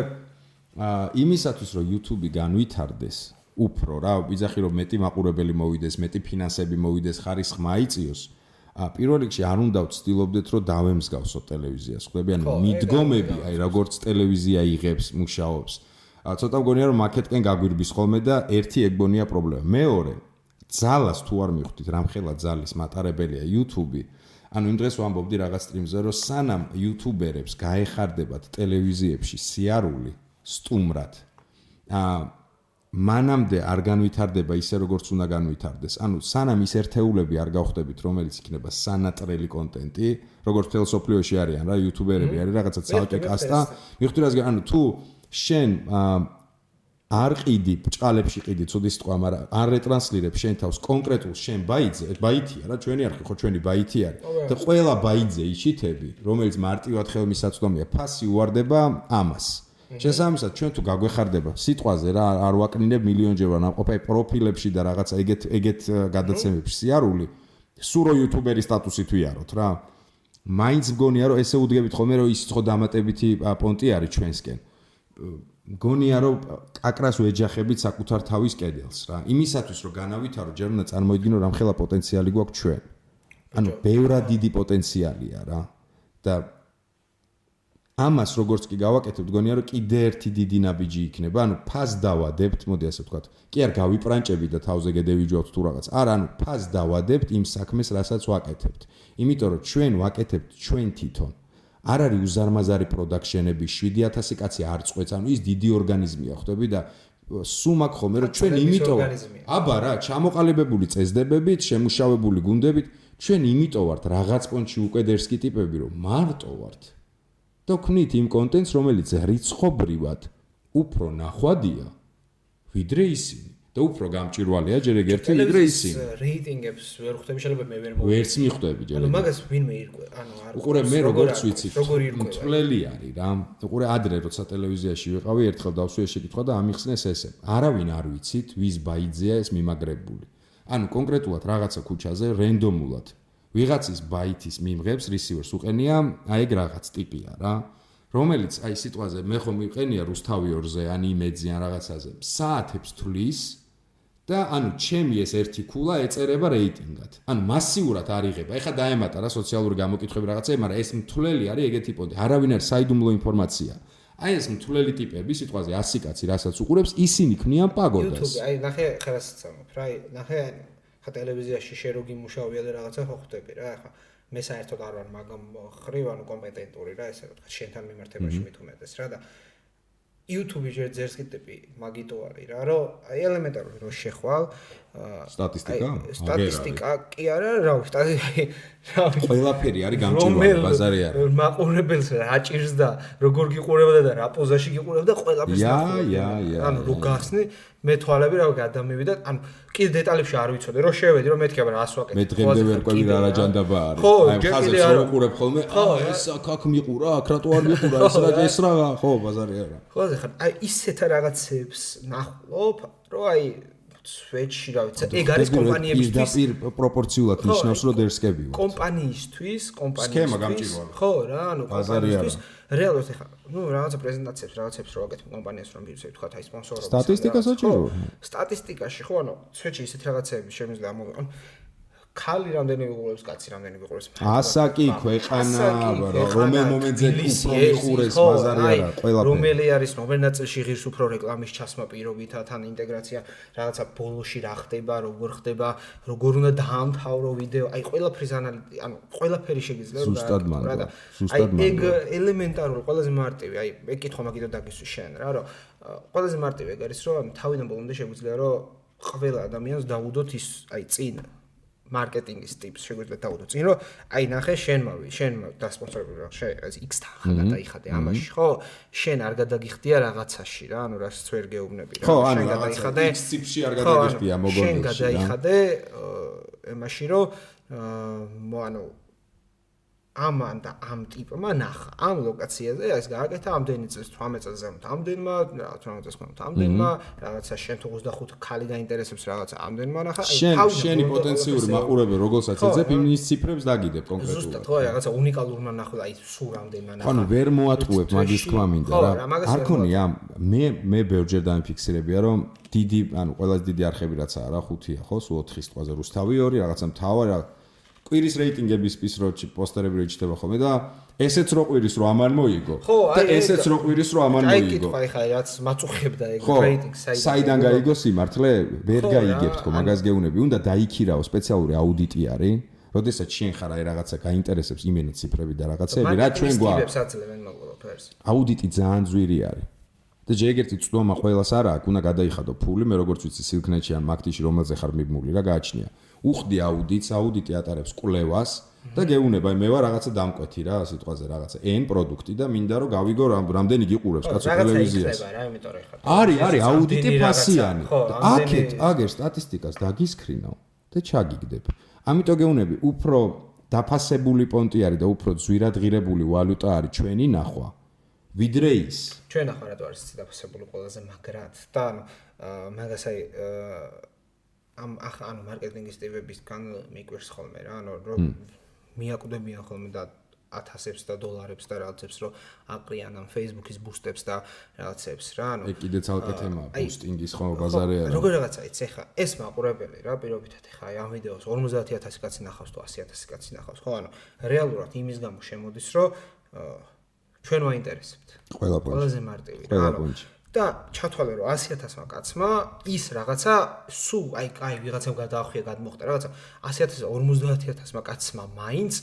იმისათვის რომ YouTube-ი განვითარდეს უფრო რა ვიძახი რომ მეტი მაყურებელი მოვიდეს მეტი ფინანსები მოვიდეს ხარისხი მაიწიოს პირველ რიგში არ უნდა ვცდილობდეთ რომ დავემსგავსოთ ტელევიზიას ხვდები ანუ მიდგომები აი როგორც ტელევიზია იღებს მუშაობს ცოტა მგონია რომ მაკეტკენ გაგვირბის ხოლმე და ერთი ეგბონია პრობლემა. მეორე, ძალას თუ არ მივხვდით, რამხელა ძალის მატარებელია YouTube-ი. ანუ იმ დღეს ვამბობდი რაღაც სტრიმზე, რომ სანამ YouTuber-ებს გაეხარდებათ ტელევიზიებში სიარული სტუმრად, მანამდე არ განვითარდება ისე როგორც უნდა განვითარდეს. ანუ სანამ ის ერთეულები არ გავხდებით, რომელიც იქნება სანატრელი კონტენტი, როგორც თელ სოფლიოში არიან რა YouTuber-ები არის რაღაცა ცალკე კასტა, მივხვდი რას ანუ თუ შენ არ ყიდი ბჭყალებში ყიდი ცუდი სიტყვა მაგრამ არ რეტრანსლირებ შენ თავს კონკრეტულ შენ ბაითია რა ჩვენი არხი ხო ჩვენი ბაითი არის და ყველა ბაითზე იშითები რომელიც მარტივად ხელმისაწვდომია ფასი უარდება ამას შესაბამისად ჩვენ თუ გაგვეხარდება სიტყვაზე რა არ ვაკნინებ მილიონჯერ რა ნამყოფი პროფილებში და რაღაცა ეგეთ გადაცემებში სიარული სურო იუთუბერის სტატუსი თუ იაროთ რა მაინც მგონია რომ ესე უდგებით ხოლმე რომ ის ხო დამატებითი პონტი არის ჩვენსკენ მგონია რომ აკრას ვეჯახებით საკუთარ თავის კედელს რა იმისათვის რომ განავითარო ჯერ უნდა წარმოიდგინო რამხელა პოტენციალი გვაქვს ჩვენ ანუ ბევრად დიდი პოტენციალია რა და ამას როგორც კი გავაკეთებთ მგონია რომ კიდე ერთი დიდი ნაბიჯი იქნება ანუ ფას დავადებთ მოდი ასე ვთქვათ კი არ გავიპრანჭებით და თავზე გედევიჯვავთ თუ რაღაც არა ანუ ფას დავადებთ იმ საქმეს რასაც ვაკეთებთ იმიტომ რომ ჩვენ ვაკეთებთ ჩვენ თვითონ არ არის უზარმაზარი პროდაქშენები 7000 კაცი არ წყვეც ანუ ის დიდი ორგანიზმია ხვდები და სულ მაგ ხოლმე რომ ჩვენ იმიტომ აბა რა ჩამოყალიბებული წესდებებით შემუშავებული გუნდებით ჩვენ იმიტომ ვართ რაღაც პონჩი უკვე დერსკი ტიპები რომ მარტო ვართ და ვქნით იმ კონტენტს რომელიც რიცხობრივად უფრო ნახვადია ვიდრე ისინი და უფრო გამჭირვალეა ჯერ ეგერთი ვიდრე ისინი რეიტინგებს ვერ ხვდები შეიძლება მე ვერ მოვიდე ვერც მიხვდები ჯერ ანუ მაგას ვინმე ირკვე ანუ არ უყურე მე როგორც ვიცით მწვლელი არის რა უყურე ადრე როცა ტელევიზიაში ვიყავი ერთხელ დავსვიე შეკითხვა და ამიხსნეს ესე არავინ არ ვიცით ვის ბაიძია ეს მიმაგრებული ანუ კონკრეტულად რაღაცა ქუჩაზე რენდომულად ვიღაცის ბაითის მიმღებს რისივერს უყენია აი ეგ რაღაც ტიპია რა რომელიც აი სიტყვაზე მე ხომ მიყენია რუსთავიორზე ან იმედზე ან რაღაცაზე საათებს თვლის და ანუ ჩემი ეს ერთი ქულა ეწერება რეიტინგად. ანუ მასიურად არ იღება. ეხლა დაემატა რა სოციალური გამოკითხები რაღაცები, მაგრამ ეს მთლელი არის ეგეთი პონტი. არავინ არ საიდუმლო ინფორმაცია. აი ეს მთლელი ტიპები სიტყვაზე 100 კაცი რასაც უყურებს, ისინი ქმნიან პაგოდას. YouTube, აი ნახე ხელას წამობ რა, ნახე ხა ტელევიზიაში შეროგი მუშაობია და რაღაცა ხო ხვდები რა, ეხლა მე საერთოდ არ ვარ მაგამ ხრივ ანუ კომპეტენტური რა ესე ვთქვა შენთან მიმართებაში მით უმეტეს რა და YouTube-ი ჯერ ძერს კიტები მაგიტო არის რა რომ აი ელემენტარული რო შეხვალ სტატისტიკა კი არა რა ვიცი ყველაფერი არის გამჭირვალე ბაზარი არის მაყურებელს აჭირს და როგორ გიყურებდა და რა პოზაში გიყურებდა ყველაფერს ანუ რო გახსნი მე თვალები რა გადამივიდა ანუ კიდე დეტალებში არ ვიცოდი რომ შევედი რომ მეთქი აბა რას ვაკეთებ მე დღემდე ვერ ყვები რა რაჯანდაბა არის აი ხაზებს რომ უყურებ ხოლმე ეს აქ მიყურა აქ რატო არ მიყურა ეს რა ხო ბაზარი არა ხო ხა აი ისეთ რაღაცებს ნახულობ რომ აი სვეჩი რა ვიცი ეგ არის კომპანიებისთვის პროპორციულად ნიშნავს რომ დერსკები ვარ კომპანიისთვის სქემა გამჭირვალე ხო რა ანუ კომპანიისთვის რეალურად ეხა რაღაცა პრეზენტაციებს რაღაცებს რო აკეთებ კომპანიას რომ ვირუსები თქვა აი სპონსორობა სტატისტიკა საჭიროა სტატისტიკაში ხო ანუ სვეჩი ისეთ რაღაცები შემიძლია ამოვიყო ხალი რამდენი ვიყურებს კაცი რამდენი ვიყურებს ასაკი ქვეყანა რომელ მომენტზე უფრო ვიყურებს ბაზარი არა ყველაფერი რომელი არის რომელ ნაწილში ღირს უფრო რეკლამის ჩასმა პირობითად ან ინტეგრაცია რაღაცა ბოლოში რა ხდება როგორ ხდება როგორ უნდა დაამთავრო ვიდეო აი ყველაფრის ანალიზი ანუ ყველაფერი შეგიძლია ზუსტად ეგ ელემენტარული ყველაზე მარტივი აი მე კითხვა მაგითო დაგისვი შენ რა რომ ყველაზე მარტივი ეგ არის რომ თავიდან ბოლომდე შეგვიძლია რომ ყველა ადამიანს დაუდოთ ის აი წინ მარკეტინგის ტიპს შეგვიძლია დავუდოთ წინ რომ აი ნახე შენ დასპონსორებული რა შეიძლება X თანხა გადაიხადე ამაში ხო შენ არ გადაგიხდია რაღაცაში რა ანუ რაც ვერ გეუბნები რა შენ გადაიხადე X ტიპში არ გადაგიხდია მოგონებაში შენ გადაიხადე ემაში რომ ანუ ამან და ამ ტიპმა ნახა ამ ლოკაციაზე ეს გააკეთა ამდენი წელს 18 წელს ზემოთ ამდენმა რა 18 წელს ხომ ამდენმა რაღაცა შენ თუ 25 ხალი გაინტერესებს რაღაცა ამდენმა ნახა აი შენი პოტენციური მაყურებელი როგორცაც ეძებ იმის ციფრებს დაგიდებ კონკრეტულად ზუსტად ხო რაღაცა უნიკალურმა ნახო აი სულ ამდენმა ნახა ანუ ვერ მოატყუებ მაგის თქმა მინდა რა არ ქონია მე ბევრჯერ დამიფიქსირებია რომ დიდი ანუ ყველაზე დიდი არხები რაც არა 5-ია ხო სულ 4-ის თვალზე რუსთავი 2 რაღაცა მთავარი კვირის რეიტინგების პისროჩი პოსტერები რეჩდება ხოლმე და ესეც რო კვირის რო ამან მოიგო და ესეც რო კვირის რო ამან მოიგო. აი კითხვა ხა რაც მაწუხებდა ეგ რეიტინგს საიდან გაიგო სიმართლე ვერ გაიგებთ ხო მაგას გეუნები უნდა დაიქირაო სპეციალური აუდიტი არის როდესაც შენ ხარ აი რაღაცა გაინტერესებს იმენა ციფრები და რაღაცები რა ჩვენ გვაქვს აუდიტი ძალიან ძვირი არის და ჯერგერთი წვდომა ყველას არა აქვს უნდა გადაიხადო ფული მე როგორც ვიცი სილქნეტში ან მაგთიში რომელზე ხარ მიბმული რა გააჩნია უხდი აუდიტი ატარებს კვლევას და გეუნება მე ვარ რაღაცა დამკვეთი რა სიტყვაზე რაღაცა N პროდუქტი და მინდა რომ გავიგო რამდენი გიყურებს კაცო ტელევიზიას არის აუდიტი ფასიანი აქეთ აგერ სტატისტიკას დაგისკრინავ და ჩაგიგდებ ამიტომ გეუნები უფრო დაფასებული პონტი არის და უფრო ძვირადღირებული ვალუტა არის ჩვენი ნახვა ვიდრე ის ჩვენ ახლა რატო არის დაფასებული ყველაზე მაგრად და მაგას აი ამ ანუ მარკეტინგის ტიპებისგან მიკვირს ხოლმე რა ანუ რომ მიაკვდებიან ხოლმე და 1000-ებს და დოლარებს და რაღაცებს რომ აყრიან ამ Facebook-ის ბუსტებს და რაღაცებს რა ანუ ეგ კიდე ცალკე თემაა ბუსტინგის ხო ბაზარი არა როგორ რაღაცა იცი ხა ეს მაყურებელი რა პირობითად ხა აი ამ ვიდეოს 50000 კაცი ნახავს თუ 100000 კაცი ნახავს ხო ანუ რეალურად იმის გამო შემოდის რომ ჩვენ ვაინტერესებთ ყველაზე მარტივი რა ანუ და ჩათვალე რომ 100000-მა კაცმა ის რაღაცა სულ აი ვიღაცამ გადაახვია გადმოხდა რაღაცა 100000 50000-მა კაცმა მაინც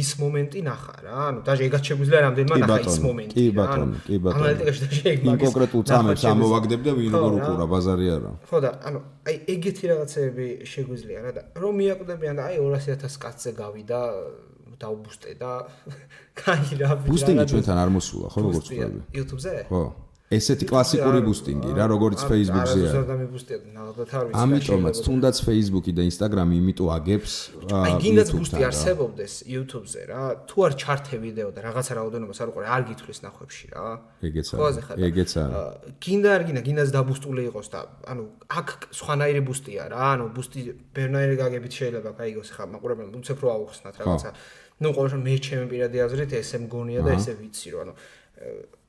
ის მომენტი ნახა რა ანუ даже ეგაც შეგვიძლია რამდენმა ნახა ის მომენტი კი ბატონო ანალიტიკაში და ეგ მაგის კონკრეტულ წამებს ამოვაგდებ და ვინ როგორ უყურა ბაზარი არა ხო და ანუ აი ეგეთი რაღაცები შეგვიძლია რა და რომ მიაკვდებიან და აი 200000 კაცზე გავიდა დაუბუსტე და კაი რა ბუსტინგი ჩვენთან არ მოსულა ხო როგორც ვთქვი YouTube-ზე ხო ესეთი კლასიკური ბუსტინგი რა როგორც Facebook-ზე არის ამიტომაც თუნდაც Facebook-ი და Instagram-ი იმიტომ აგებს აი გინდაც ბუსტი არსებობდეს YouTube-ზე რა თუ არ ჩართე ვიდეო და რაღაცა რაოდენობას არ უყურე არ გითვლის ნახვებში რა ეგეც არა გინდა არ გინდაც დაბუსტული იყოს და ანუ აქ სხვანაირი ბუსტია რა ანუ ბუსტი ბერნაირი გაგებით შეიძლება გაიგოს ხა მაყურებელს უცებ რო აუხსნათ რაღაცა ნუ ყოველ შემთხვევაში მე ჩემი პირადი აზრით ესე მგონია და ესე ვიცი რომ ანუ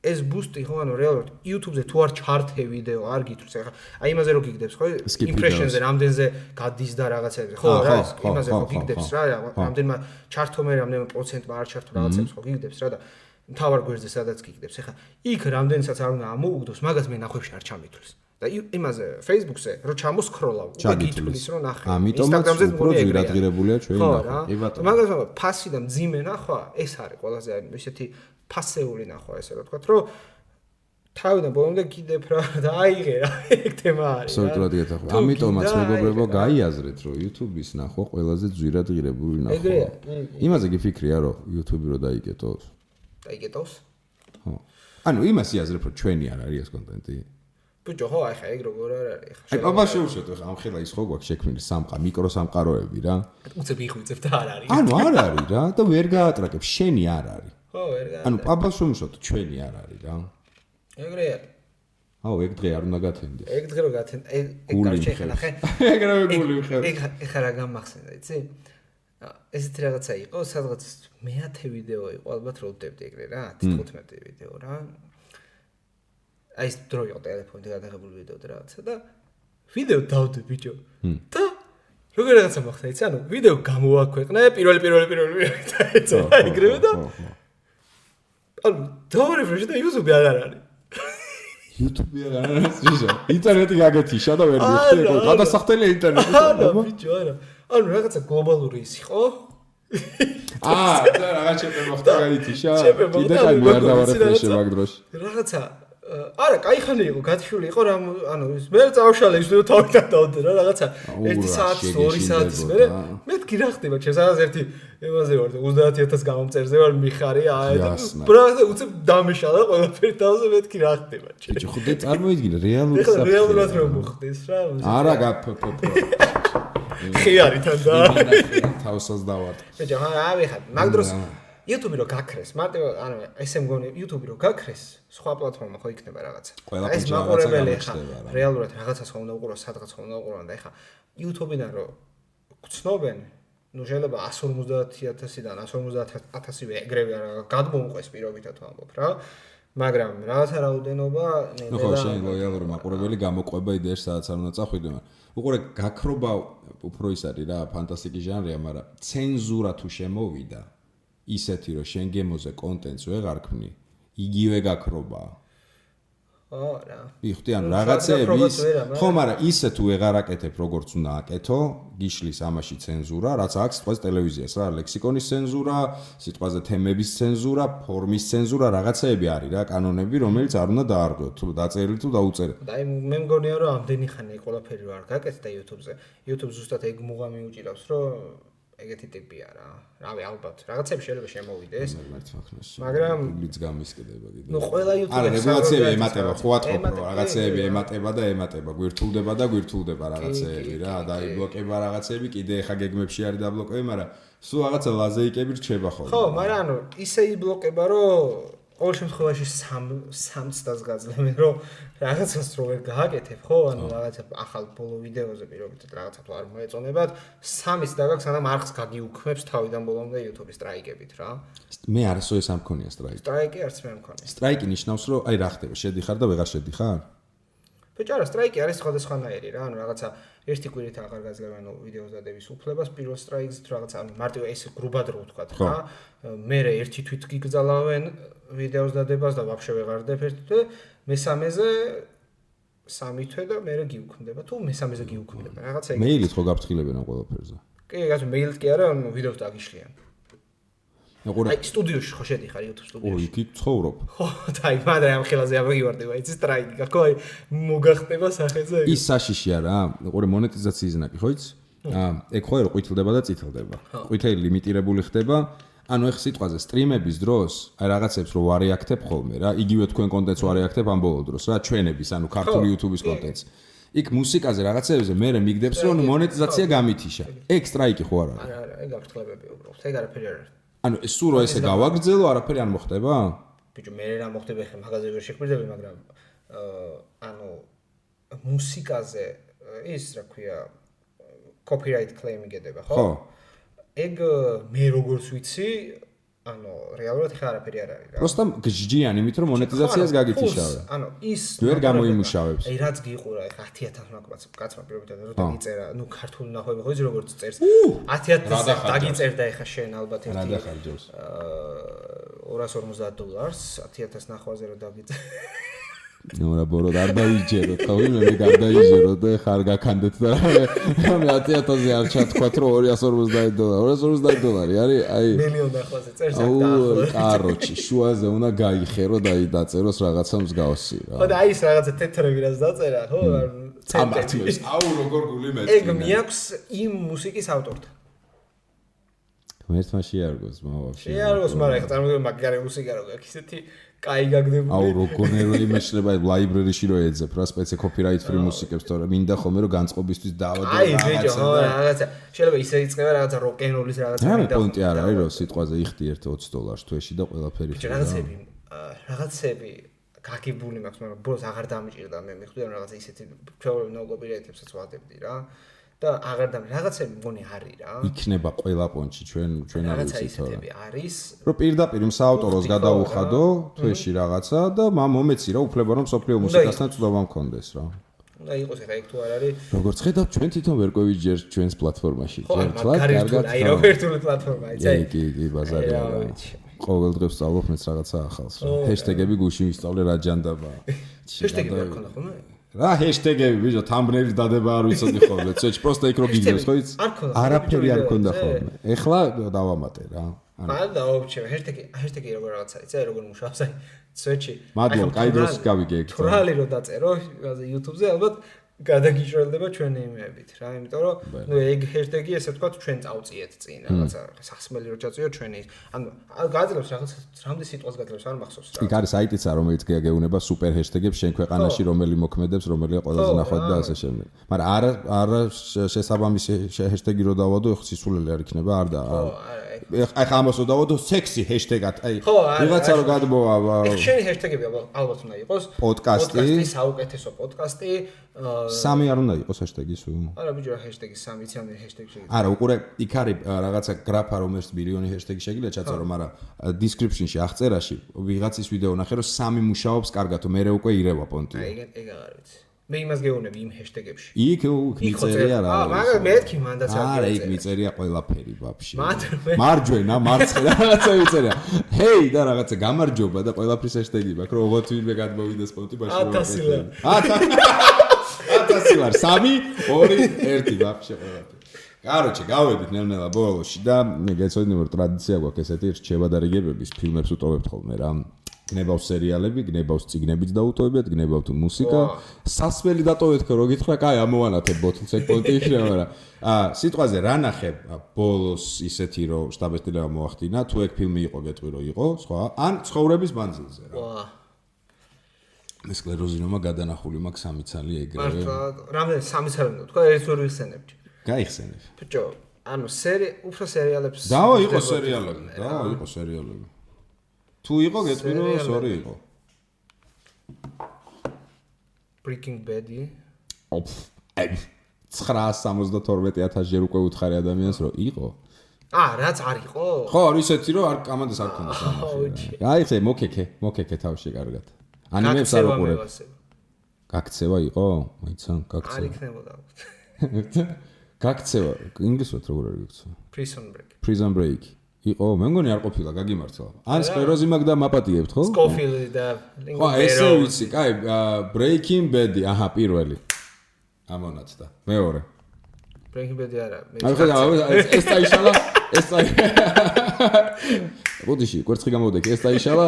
ეს ბუსტი ხო ანუ რეალურად YouTube-ზე თუ არ ჩართე ვიდეო არ გითვლს ახლა აი იმაზე რო გიგდებს ხო impression-ზე რამდენზე გადის და რაღაცებზე ხო რა იმაზე რო გიგდებს რა რამდენმა ჩართო მე რამდენმა პროცენტმა არ ჩართო რაღაცებს ხო გიგდებს რა და მთავარ გვერდზე სადაც გიგდებს ახლა იქ რამდენსაც არ უნდა ამოუგდოს მაგას მე ნახვებში არ ჩამითვლის და იმაზე Facebook-ზე რო ჩამოსკროლავ უკვე გითვლის რომ ნახე Instagram-ზე უფრო ძირადღირებულია ჩვენი ნახვა კი ბატონო მაგას ფასი და მძიმე ნახვა ეს არის ყველაზე ისეთი ფასეული ნახვა ესე რა ვთქვათ რომ თავიდან ბოლომდე კიდევ რა და აიღე რა ეგ თემა არის სოლიტრად გეთახვა ამიტომაც მეგობრებო გაიაზრეთ რომ YouTube-ის ნახვა ყველაზე ძვირადღირებული ნახვა იმაზე გიფიქრია რომ YouTube-ი რო დაიკეტოს ხო ანუ იმას იაზრებ რომ ჩვენი არ არის ეს კონტენტი ბიჭო ხო აი ხა ეგ როგორ არ არის ხა აი აბა შევშოთ ხა ამ ხელა ის ხო გვაქვს შექმნილი მიკრო სამყაროები რა უცებ იხვიწებ და არ არის ანუ არ არის რა და ვერ გაატრაკებ შენი არ არის ხო ვერ გაატრაკებ ანუ აბა შევშოთ ჩვენი არ არის რა ეგრეა აუ, ეგ დღე არ უნდა გათენდეს. ეგ დღე რო გათენ, ეგ გარჩე ხნახე. ეგრევე გული ვიხევ. ეგ რა გამახსენდა, იცი? ესეთი რაღაცა იყო, სადღაც მე-10 ვიდეო იყო, ალბათ რო ვდებდი ეგრე რა, 15 ვიდეო რა. აი ეს დრო იყო ტელეფონით გადაღებული ვიდეო და რაღაცა და ვიდეო დავდე ბიჭო. და როგორ რაღაცა მოხდა, იცი? ანუ ვიდეო გამოვაქვეყნე, პირველი და ეცო, ეგრევე და ანუ დავრეფრეშ და YouTube-ი აღარ არის. YouTube-ი აღარ არის ისე. ინტერნეტი გაგეთიშა და ვერ მიხდი, გადასახდელი ინტერნეტი. არა, ბიჭო, არა. ანუ რაღაცა გლობალური ის იყო. და რაღაც ჩემპე მოხდა გაითიშა. კიდე კაი არ დავარეფრეშე მაგ დროს. რაღაცა არა, კაი ხანი იყო, გათიშული იყო რა, ანუ მე წავშალე ის ვიდეო თავიდან დავდე რა, რაღაცა 1 საათის, 2 საათის მე კი რა ხდება, ჩემს რაღაც ერთი ემაზე ვარ და 30000 გამომწერზე ვარ მიხარი, აი და ბრატა უცებ დამეშალა ყველაფერი თავზე მე კი რა ხდება, ბიჭო, ხოდე წარმოიდგინე რეალური საფრთხე. რეალურად რომ მოხდეს რა. არა გაფფფფ. ხიარიდან და თავსას დავარ. ბიჭო, აი ხა, მაგ დროს YouTube-ი რო გაქრეს, მარტო ანუ ესე მგონი YouTube-ი რო გაქრეს, სხვა პლატფორმა ხო იქნება რაღაცა. ეს მაყურებელი ხა რეალურად რაღაცას ხომ უნდა უყურო, სადღაც ხომ უნდა უყურო და ხა YouTube-იდან რო გცნობენ, ნუ შეიძლება 150000-დან 150000-ვე ეგრევე არა გადმოუყვეს პირობითად ვამბობ რა. მაგრამ რაღაცა რაოდენობა ნელა. ხო, შენ ლოიალური მაყურებელი გამოყვება იდეაში სადაც არ უნდა წახვიდე, მაგრამ უყურე გაქრობა უფრო ის არის რა, ფანტასტიკის ჟანრია, მაგრამ ცენზურა თუ შემოვიდა ისეთი რომ შენ გემოზე კონტენტს ვეღარ ქმნი, იგივე გაქრობაა. არა. ვიხდი ან რაღაცეები ის, ხო, მაგრამ ისე თუ ვეღარ აკეთებ როგორც უნდა აკეთო, გიშლის ამაში ცენზურა, რაც აქვს სიტყვაზე ტელევიზიას რა, ლექსიკონის ცენზურა, სიტყვაზე თემების ცენზურა, ფორმის ცენზურა, რაღაცეები არის რა, კანონები, რომელიც არ უნდა დაარღვიოთ, თუ დაწერილი თუ დაუწერილი. და აი მე მგონია რომ ამდენი ხანი ყველაფერი რო არ გაკეთდა YouTube-ზე. YouTube ზუსტად ეგ მუღამი უჭირავს, რომ ეგეთი ტიპია რა. რავი, ალბათ, რაღაცები შეიძლება შემოვიდეს. მაგრამ ბლიც გამისკდება კიდე. ნუ ყველა YouTube-ზე არა, რეგულაციები ემატება, ხო ატყობ, რომ რაღაცეები ემატება, გვირთულდება რაღაცეები რა, დაიბლოკება რაღაცეები, კიდე ხა გეგმებში არის დაბლოკები, მაგრამ სულ რაღაცა ლაზეიკები რჩება ხოლმე. ხო, მაგრამ ანუ ისე იბლოკება, რომ ყოველ შემთხვევაში 3 წელს გაძლევენ, რომ რაღაცას რო ვერ გააკეთებ, ხო? ანუ რაღაცა ახალ ბოლო ვიდეოზე პირობითად რაღაცა თუ არ მოეწონებათ, 3-ს დაგაქვს, სანამ არხს გაგიუქმებს თავიდან ბოლომდე YouTube-ის სტრაიკებით რა. მე არასო ეს არ მქონია სტრაიკი. სტრაიკი არც მე არ მქონია. სტრაიკი ნიშნავს, რომ აი რა ხდება, შედიხარ და ვეღარ შედიხარ? ბიჭო, არა, სტრაიკი არის სხვადასხვანაირი რა, ანუ რაღაცა ერთი კვირით აღარ გაძლევენ ვიდეოს დადების უფლებას, პირველ სტრაიკს რაღაცა ანუ მარტივ ეს გრუბად რო ვთქვა რა. მერე ერთი თვით გიგზალავენ ვიდეოს დადებას და ვაფშე ვეღარ დებ ერთ თვე, მესამეზე 3 თვე და მერე გიუქმდება. თუ მესამეზე გიუქმდება, რაღაცა ეგ. მეილით ხო გაფრთხილებენ ამ ყველაფერზე? კი, გასულ მეილით კი არა, ანუ ვიდეოს დაგიშლიან. აი, სტუდიოში ხო შედიხარ YouTube სტუდიაში. ო, იქ ცხოვრობ. ხო, და აი, მაგრამ ამ ხელაზე ამოგივარდება, იცი სტრაიკი, გაქო აი მოგახტება სახეზე. ის საშიშია რა, უყურე მონეტიზაციის ნაკი, ხო იცი? ეგ ხო ერო ყვითლდება და წითლდება. ყვითელი ლიმიტირებული ხდება. ანუ ეხ სიტყვაზე სტრიმების დროს აი რაღაცებს რო ვარეაქტებ ხოლმე რა, იგივე თქვენ კონტენტს ვარეაქტებ ამ ბოლო დროს რა, ჩვენების, ანუ ქართული YouTube-ის კონტენტს. იქ მუსიკაზე რაღაცებზე მე მიგდებს რომ მონეტიზაცია გამითიშა. ეგ სტრაიკი ხო არ არის? არა, ეგ აფრთხილებები უბრალოდ. ეგ არაფერი არ არის. ანუ ეს სულ რო ესე გავაგრძელო, არაფერი არ მოხდება? ბიჭო, მე რა მოხდება ხე მაგაზე ვერ შეხვდები, მაგრამ ანუ მუსიკაზე ის რა ქვია copyright claim იგედება, ხო? ხო. ეგ მე როგორც ვიცი, ანუ რეალურად ხა არაფერი არ არის რა. просто გჯდიან იმით რომ მონეტიზაციას გაგითიშავე. ანუ ის ვერ გამოიმუშავებს. აი რაც გიყურა ხა 10000 კაცმა პირობითად რომ დაგიწერა, ნუ ქართული ნახვები ხო იცი როგორც წერს. 10000 დაგიწერდა ხა შენ ალბათ ერთი. რა დახარჯავს? $250 10000 ნახვაზე რომ დაგიწერა. ნუ რა ბოროდ არ დაიჯეროთ, ხო მე გადაიჯეროთ და ხარ გაქანდეთ და მე 10000-ზე არ ჩათქვათ რომ $250 $250 არის აი მილიონ ნახვაზე წერს აქ და კაროჩი შუაზე უნდა გაიხერო და დაწეროს რაღაცა მსგავსი რა. ხო და აი ეს რაღაცა თეთრები რაც დაწერა, ხო? წამართმევს. აუ როგორ გული მეც. ეგ მიაქვს იმ მუსიკის ავტორთან. ღმერთმა შეარგოს მოვაფშე. შეარგოს, მაგრამ ეხლა წარმოგიდგენთ მაგარი მუსიკა რო გაქვს ისეთი კაი გაგდებული. აუ როგორ იმეშლება ლაიბრერიში რო ეძებ რა სპეცი copyright free მუსიკებს თორე მინდა ხოლმე რომ განწყობისთვის დავადო რაღაცა. აი ბიჭო, ხო რაღაცა. შეიძლება ისე იწყება რაღაცა როკ-ენ-როლის რაღაცა მინდა. რა პონტი არ არის რომ სიტყვაზე იხდი ერთ $20 თვეში და ყველაფერი რაღაცები გაგებული მაქვს, მაგრამ ბოლოს აღარ დამიჭირდა მე მიხვდი რომ რაღაცა ისეთი ჩვეულებრივ კოპირაიდებსაც ვადებდი რა. და აღარ რაღაცები მგონი არის რა. იქნება ყველა პონჩი ჩვენ არ ვიცით რა. არის. რომ პირდაპირ საავტოროს გადაუხადო თვეში რაღაცა და მომეცი რა უფლება რომ სოფლიო მუსიკასთან წვდომა მქონდეს რა. უნდა იყოს ეხა იქ თუ არ არის. როგორც ხედავ ჩვენ თვითონ ვერ ყვევიჯერ ჩვენს პლატფორმაში. კარგად. აი რობერტული პლატფორმა იცი. კი, ბაზარია. ყოველ დღე ვსწავლობ მეც რაღაცა ახალს რა. ჰეშტეგები გუში ვისწავლე რა ჯანდაბაა. ჰეშტეგები არ ქონდა ხოლმე? რა ჰეშტეგები ბიჭო თამბნეილის დადება არ ვიცოდი ხოლმე. ცეჩ პროსტა იქ რო გიგებს ხო იცი? არაფერი არ ქონდა ხოლმე. ეხლა დავამატე რა. არა დაუჩევ ჰეშტეგი როგორ რაღაცა იცი აი როგორ მუშაობს აი სვეჩი მადლობა კაი დროს გავიგე ეგ თვრალი რო დაწერო YouTube-ზე ალბათ გადაგიჭრელდება ჩვენი იმებით რა იმიტომ რომ ნუ ეგ ჰეშტეგი ესე თქვა ჩვენ წავწიეთ წინ რაღაცა სახსმელი რო ჩაწიო ჩვენი ანუ გაძლევს რაღაც რამდენი სიტყვას გაძლევს არ მახსოვს რა იქ არის საიტიც რომელიც გეუბნება სუპერ ჰეშტეგებს შენ ქვეყანაში რომელი მოქმედებს რომელია ყველაზე ნახვად და ასე შემდეგ მაგრამ არა შესაბამისი ჰეშტეგი რო დავადო ეხ სისულელი არ იქნება არ და აი ამას რო დავადო სექსი ჰეშტეგად აი ვიღაცა რო გადმოვა შენი ჰეშტეგები ალბათ უნდა იყოს პოდკასტი საუკეთესო პოდკასტი სამი არ უნდა იყოს ჰეშტეგი სულ არა ბიჭო ჰეშტეგი სამი იცი ჰეშტეგი შეიძლება არა უყურე იქ არის რაღაცა გრაფა რომელიც მილიონი ჰეშტეგი შეგიძლია ჩაწერო მაგრამ description-ში აღწერაში ვიღაცის ვიდეო ნახე რომ სამი მუშაობს კარგად მე უკვე ირევა პონტი ეგ აღარ ვიცი მე იმას გეუბნები იმ ჰეშტეგებში იქ მიწერია რა მაგრამ მეთქი მანდაც არა იქ მიწერია ყველაფერი ვაფშე მარჯვენა მარცხენა რაღაცა მიწერია ჰეი და რაღაცა გამარჯობა და ყველაფრის ჰეშტეგი მაქვს რომ ოღონდ ვინმე გადმოვიდეს პონტი ბაშო 1000 ლარ 3 2 1 ვაფშე ყველაფერი კაროჩე გავედით ნელ-ნელა ბოლოში და გეცოდინე რომ ტრადიცია გვაქვს ესეთი რჩევა და რიგებების ფილმებს ვტოვებთ ხოლმე რა გნებავს სერიალები, გნებავს წიგნებიც დაუტოვებთ, გნებავთ მუსიკა. სასმელი დატოვეთ ხო, რო გითხრა, კაი, ამოვანათებ ბოთლს ეგ პონტი იქნება, მაგრამ სიტყვაზე რა ნახე ბოლოს ისეთი რომ შტაბ-ესტილება მოახდინა, თუ ეგ ფილმი იყო, გეტყვი რომ იყო, სხვა, ან ცხოვრების მანძილზე რა. მე სკლეროზინომა გადანახული მაქვს 3 ცალი ეგრევე. მართლა, რამდენი 3 ცალი უნდა თქვა, ეს ვერ ვიხსენებდი. გაიხსენებ. ბიჭო, ანუ უფრო სერიალებს დავა იყო სერიალები. თუ იყო გეტყვი რომ სორი იყო Breaking Bad-ი 972,000 ჯერ უკვე უთხარი ადამიანს რომ იყო რაც არ იყო ხო ისეთი რომ არ კამანდეს არ ქონდა სამაში აი ხე მოკეკე თავში კარგად ანიმებს არ უყურებ გაქცევა იყო მაიცან გაქცევა არ იქნებოდა გაქცევა ინგლისურად როგორ არის გაქცევა Prison Break იყო, მე მგონი არ ყოფილა, გაგიმართლა. ან სკლეროზი მაგ და მაპატიებთ, ხო? Scofield და ხო, ესე ვიცი, კაი, Breaking Bad-ი, აჰა, პირველი. ამონაცდა. მეორე. Breaking Bad-ი არა. ეს დაიშალა, ბოდიში, კვერცხი გამოვდექი, ეს დაიშალა,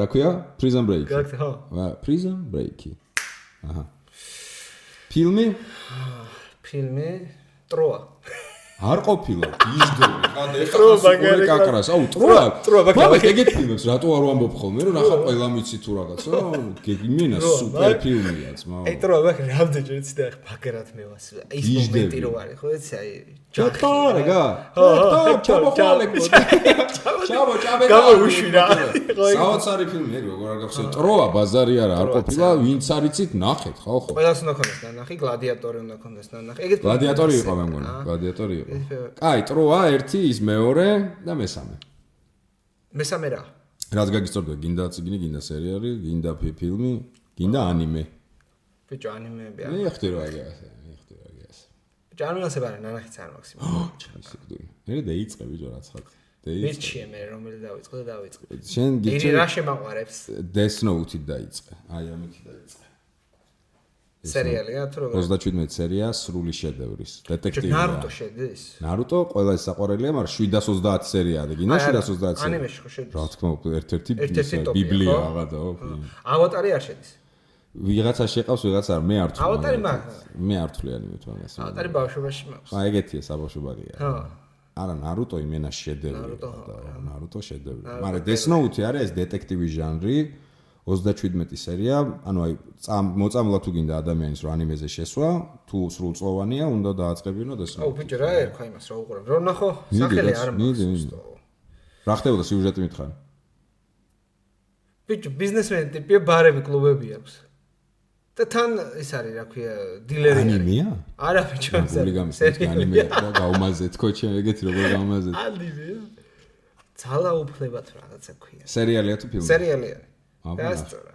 რა ქვია? Prison Break. ხო. Prison Break-ი. აჰა. ფილმი? ტროა. არ ყოფილა ისდები ხანდა ეხლა სულ კაკრას აუ ტროა მაგრამ ეგეთ ფილმებს რატო არ ვამბობ ხოლმე რომ ნახა ყველა მიცი თუ რაღაცა გეგმინა სუპერ ფილმია ძმა აი ტროა მაგრამ რამდენჯერ იცი და ბაგერად მე ვას ის მომენტი რო არის ხო იცი აი ჯახარეგა ჩაბო გამოვიშვი რა საოცარი ფილმი ეგ როგორ არ გახსოვს ტროა ბაზარი არა არ ყოფილა ვინც არიცით ნახეთ ხო ყველას უნდა ქონდეს ნანახი გლადიატორი უნდა ქონდეს ნანახი ეგეთ გლადიატორი იყო მე მგონი გლადიატორი იყო კაი ტროა 1 ის მეორე და მესამე რა რაც გაგისწორდა გინდა წიგნი გინდა სერიალი გინდა ფილმი გინდა ანიმე ბიჭო ანიმეები მე ხდი რა აგასე ბიჭო ანიმეზე ბარა ნანახიც არ მაქვს მე დაიწყე ბიჭო რაცხად მირჩიე მე რომელი დავიწყე შენ გიჩი რა შემაყვარებს Death Note-ით დაიწყე აი ამით დაიწყე სერიალია თუ როგორ 37 სერია სრული შედევრის დეტექტივია ნარუტო შედის ნარუტო ყველა ის საყვარელია მაგრამ 720 სერიაა და გინდა 720 სერია ანიმეში ხო შედის რა თქმა უნდა ერთ-ერთი ბიბლია აღადა ავატარი არ შედის ვიღაცა შეყავს ვიღაცა არ მე არ ვთვლი ავატარი მაქვს მე არ ვთვლი ანიმეთ მაგას ავატარი ბავშვობაში მაქვს აი ეგეთია საბავშვობარია ხო არა ნარუტო იმენა შედევრი ნარუტო შედევრი მაგრამ Death Note არის ეს დეტექტივის ჟანრი 37 სერია, ანუ აი მოწამლა თუ გინდა ადამიანის რო ანიმეზე შესვა, თუ სრულწლოვანია, უნდა დააწყებინო Death Note. აუ ბიჭო რა ერქვა იმას რა უყურებ. რო ნახო, სახელი არ მაქვს. რა ხდებოდა სიუჟეტი მითხარი? ბიჭო, ბიზნესმენი ტიპია, ბარები, კლუბები აქვს. და თან ის არის, რა ქვია, დილერი. ანიმეა? არა, ბიჭო, ანიმეა და გაუმაზეთ ქოჩი, ეგეთი როგორ გაუმაზეთ. ანიმეა. ძალაუფლებად რაღაცა ქვია. სერიალია თუ ფილმი? სერიალია. დასწორა.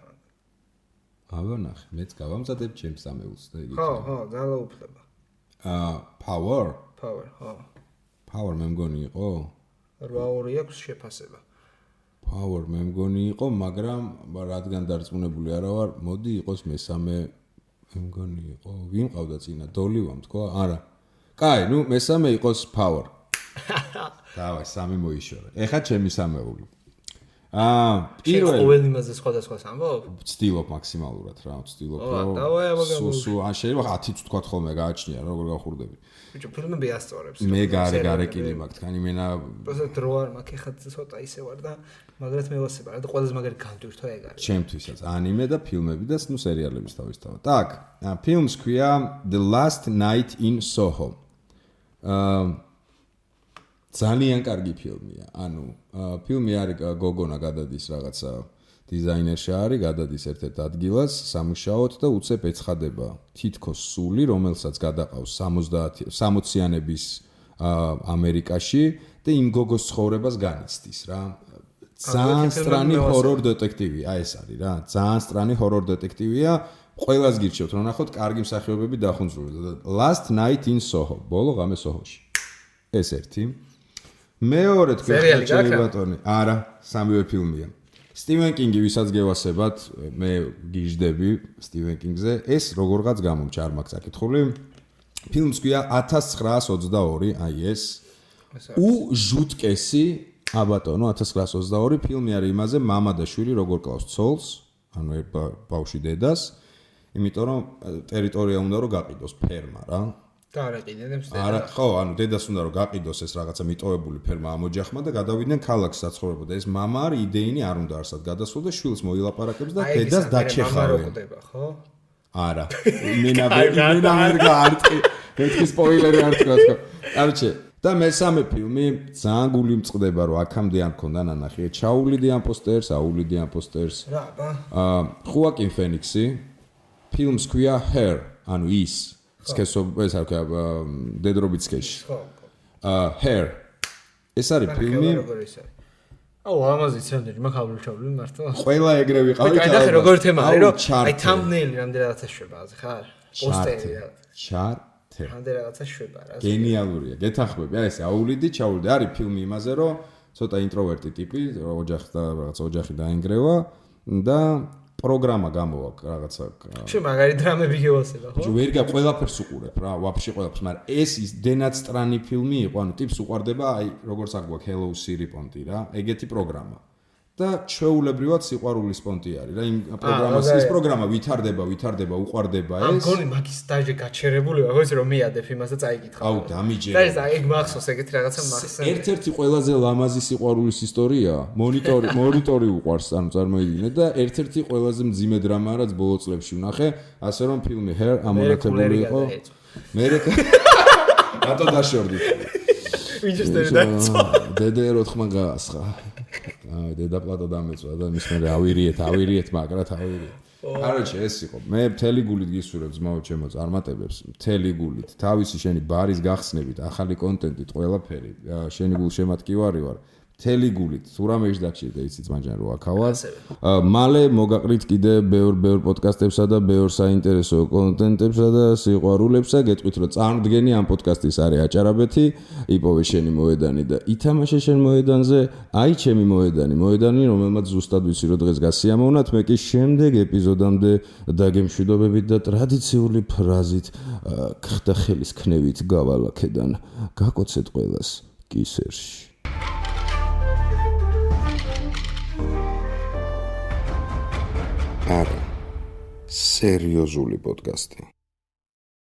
ავანახე, მეც გავამზადებ ჩემს ამეულს და იგი. ხო, ძალაუფლება. Power? Power, ხო. Power მე მგონი იყო? 8-2 აქვს შეფასება. Power მე მგონი იყო, მაგრამ რადგან დარწმუნებული არა ვარ, მოდი იყოს მესამე მე მგონი იყო. ვინ ყავდა წინა? დოლივა თქვა? არა. კაი, ნუ მესამე იყოს Power. დავай, სამი მოიშორე. ეხა ჩემი სამეული. პირველ ყოველ იმაზე სხვადასხვა ამბობ? ვცდილობ მაქსიმალურად რა, ვცდილობ რომ სუ ან შეიძლება 10-ც თქვა ხოლმე გააჩნია როგორ გავხურდები. ბიჭო, ფილმები ასწორებს. მე გარეკილი მაქვს, თან იმენა პროცესად რო არ მაქვს, ეხლა ცოტა ისე ვარ და მაგრამ მე ვასება რა და ყველაზე მაგარი განტვირთვა ეგ არის. ჩემთვისაც ანიმე და ფილმები და ნუ სერიალების თავისთავად. Так, ფილმს ქვია The Last Night in Soho. ძალიან კარგი ფილმია. ანუ ფილმი არის გოგონა გადადის რაღაცა დიზაინერში არის, გადადის ერთ-ერთ ადგილას სამუშაოდ და უცებ ეცხადება თითქოს სული, რომელსაც გადაყავს 60-იანების ამერიკაში და იმ გოგოს ცხოვრებას განიცდის რა. ძალიან სტრანი ჰორორ დეტექტივი, აი ეს არის რა. ძალიან სტრანი ჰორორ დეტექტივია. ყველას გირჩევთ რომ ნახოთ კარგი მსახიობები დახუნძურდა. Last Night in Soho, ბოლო ღამე სოჰოში. ეს ერთი. მეორე თქვენ ჩემი ბატონი, არა, სამივე ფილმია. სტივენ კინგი, ვისაც გევასებათ, მე გიждდები სტივენ კინგზე, ეს როგორღაც გამომჩა, არ მაქვს აკითხული. ფილმს ქვია 1922, აი ეს. ჟუტკესი, აბატონო, 1922 ფილმი არის იმაზე, მამა და შვილი როგორ კლავს ცოლს, ანუ ბავშვი დედას, იმიტომ რომ ტერიტორია უნდა რომ გაყიდოს ფერმა რა. და არ აყიდებს დედა. არა, ხო, ანუ დედას უნდა რომ გაყიდოს ეს რაღაცა მიტოვებული ფერმა ამ ოჯახმა და გადავიდნენ ქალაქს საცხოვრებლად. ეს მამა არის იდეინი არ უნდა არსად გადასულ და შვილს მოილაპარაკებს და დედას დაჩეხავენ. ხო? არა. იმენა ვერ გაარტყი. მეთქი სპოილერი არ თქვა თქო. კაროჩე, და მესამე ფილმი ძალიან გული მწყდება რომ აქამდე არ მქონდა ნანახი. ჩაუვლიდი ამ პოსტერს, აუვლიდი ამ პოსტერს. რა, ბა. ხუაკინ ფენიქსი. ფილმს ქვია Her, ანუ ის სქესო ეს არ ქვია დედრობით სქესში. Her. ეს არის ფილმი. აუ, ამაზეც რამდენი მაგალითად ჩავლი მართლა. ყველა ეგრე ვიყავით. აი, ნახე როგორ თემაა, რომ აი thumbnail რამდენადაც შვება, ხა? პოსტერი რა. ჩარტე. რამდენადაც შვება რა. გენიალურია. გეთანხმები. აი ეს აუვლიდი, ჩაუვლიდი. არის ფილმი იმაზე, რომ ცოტა ინტროვერტი ტიპი, ოჯახი და რაღაცა ოჯახი დაინგრევა და პროგრამა გამოვა რაღაცა. შენ მაგარი დრამები გევასება, ხო? ჯო ვერ ყველაფერს უყურებ რა, ვაფშე ყველაფერს, მაგრამ ეს ის დენად სტრანი ფილმი იყო, ანუ ტიპს უყარდება, აი როგორც აგვაქვს Hello Siri პონტი რა, ეგეთი პროგრამა. და ჩვეულებრივად სიყვარულის პონტი არის რა, იმ პროგრამას ის პროგრამა ვითარდება, უყარდება ეს. ამ გონი მაგის დაჟე გაჩერებული, ხო იცი რომ მიადებ იმას და წაიკითხავ. აუ, დამიჯერე. და ეს ეგ მახსოვს ეგეთი რაღაცა მახსოვს. ერთ-ერთი ყველაზე ლამაზი სიყვარულის ისტორია, მონიტორი უყარს, ანუ წარმოიდგინე და ერთ-ერთი ყველაზე მძიმე დრამა რაც ბოლო წლებში ვნახე, ასე რომ ფილმი Her ამონათებული იყო. მე რატო დაშორდით? ვინჩესტერი დაიწყო. დედერო ხმა გაასხა. აი დედა პლატო დამეწვა და მის მერე ავირიეთ მაგრად ავირიეთ. კაროჩე ეს იყო. მე მთელი გულით გისურვებ ძმაო ჩემო წარმატებებს, მთელი გულით. თავისი შენი ბარის გახსნებით, ახალი კონტენტით, ყველაფერი. შენი გულშემატკივარი ვარ. მთელი გულით. თუ რამე ის დაგჭირდა იცი ძმაჯან რო აქავა. მალე მოგაყრით კიდე ბევრ პოდკასტებსა და ბევრ საინტერესო კონტენტებსა და სიყვარულებსა. გეტყვით რომ წარმდგენი ამ პოდკასტის არის აჭარაბეთი, იპოვე შენი მოედანი და ითამაშე შენ მოედანზე, აი ჩემი მოედანი, რომელმაც ზუსტად ვიცი რომ დღეს გასიამოვნათ, მე კი შემდეგ ეპიზოდამდე დაგემშვიდობებით და ტრადიციული ფრაზით ხდა ხელის ქნევით გავალაქედან. გაკოცეთ ყველას კისერში. არა, სერიოზული პოდკასტი.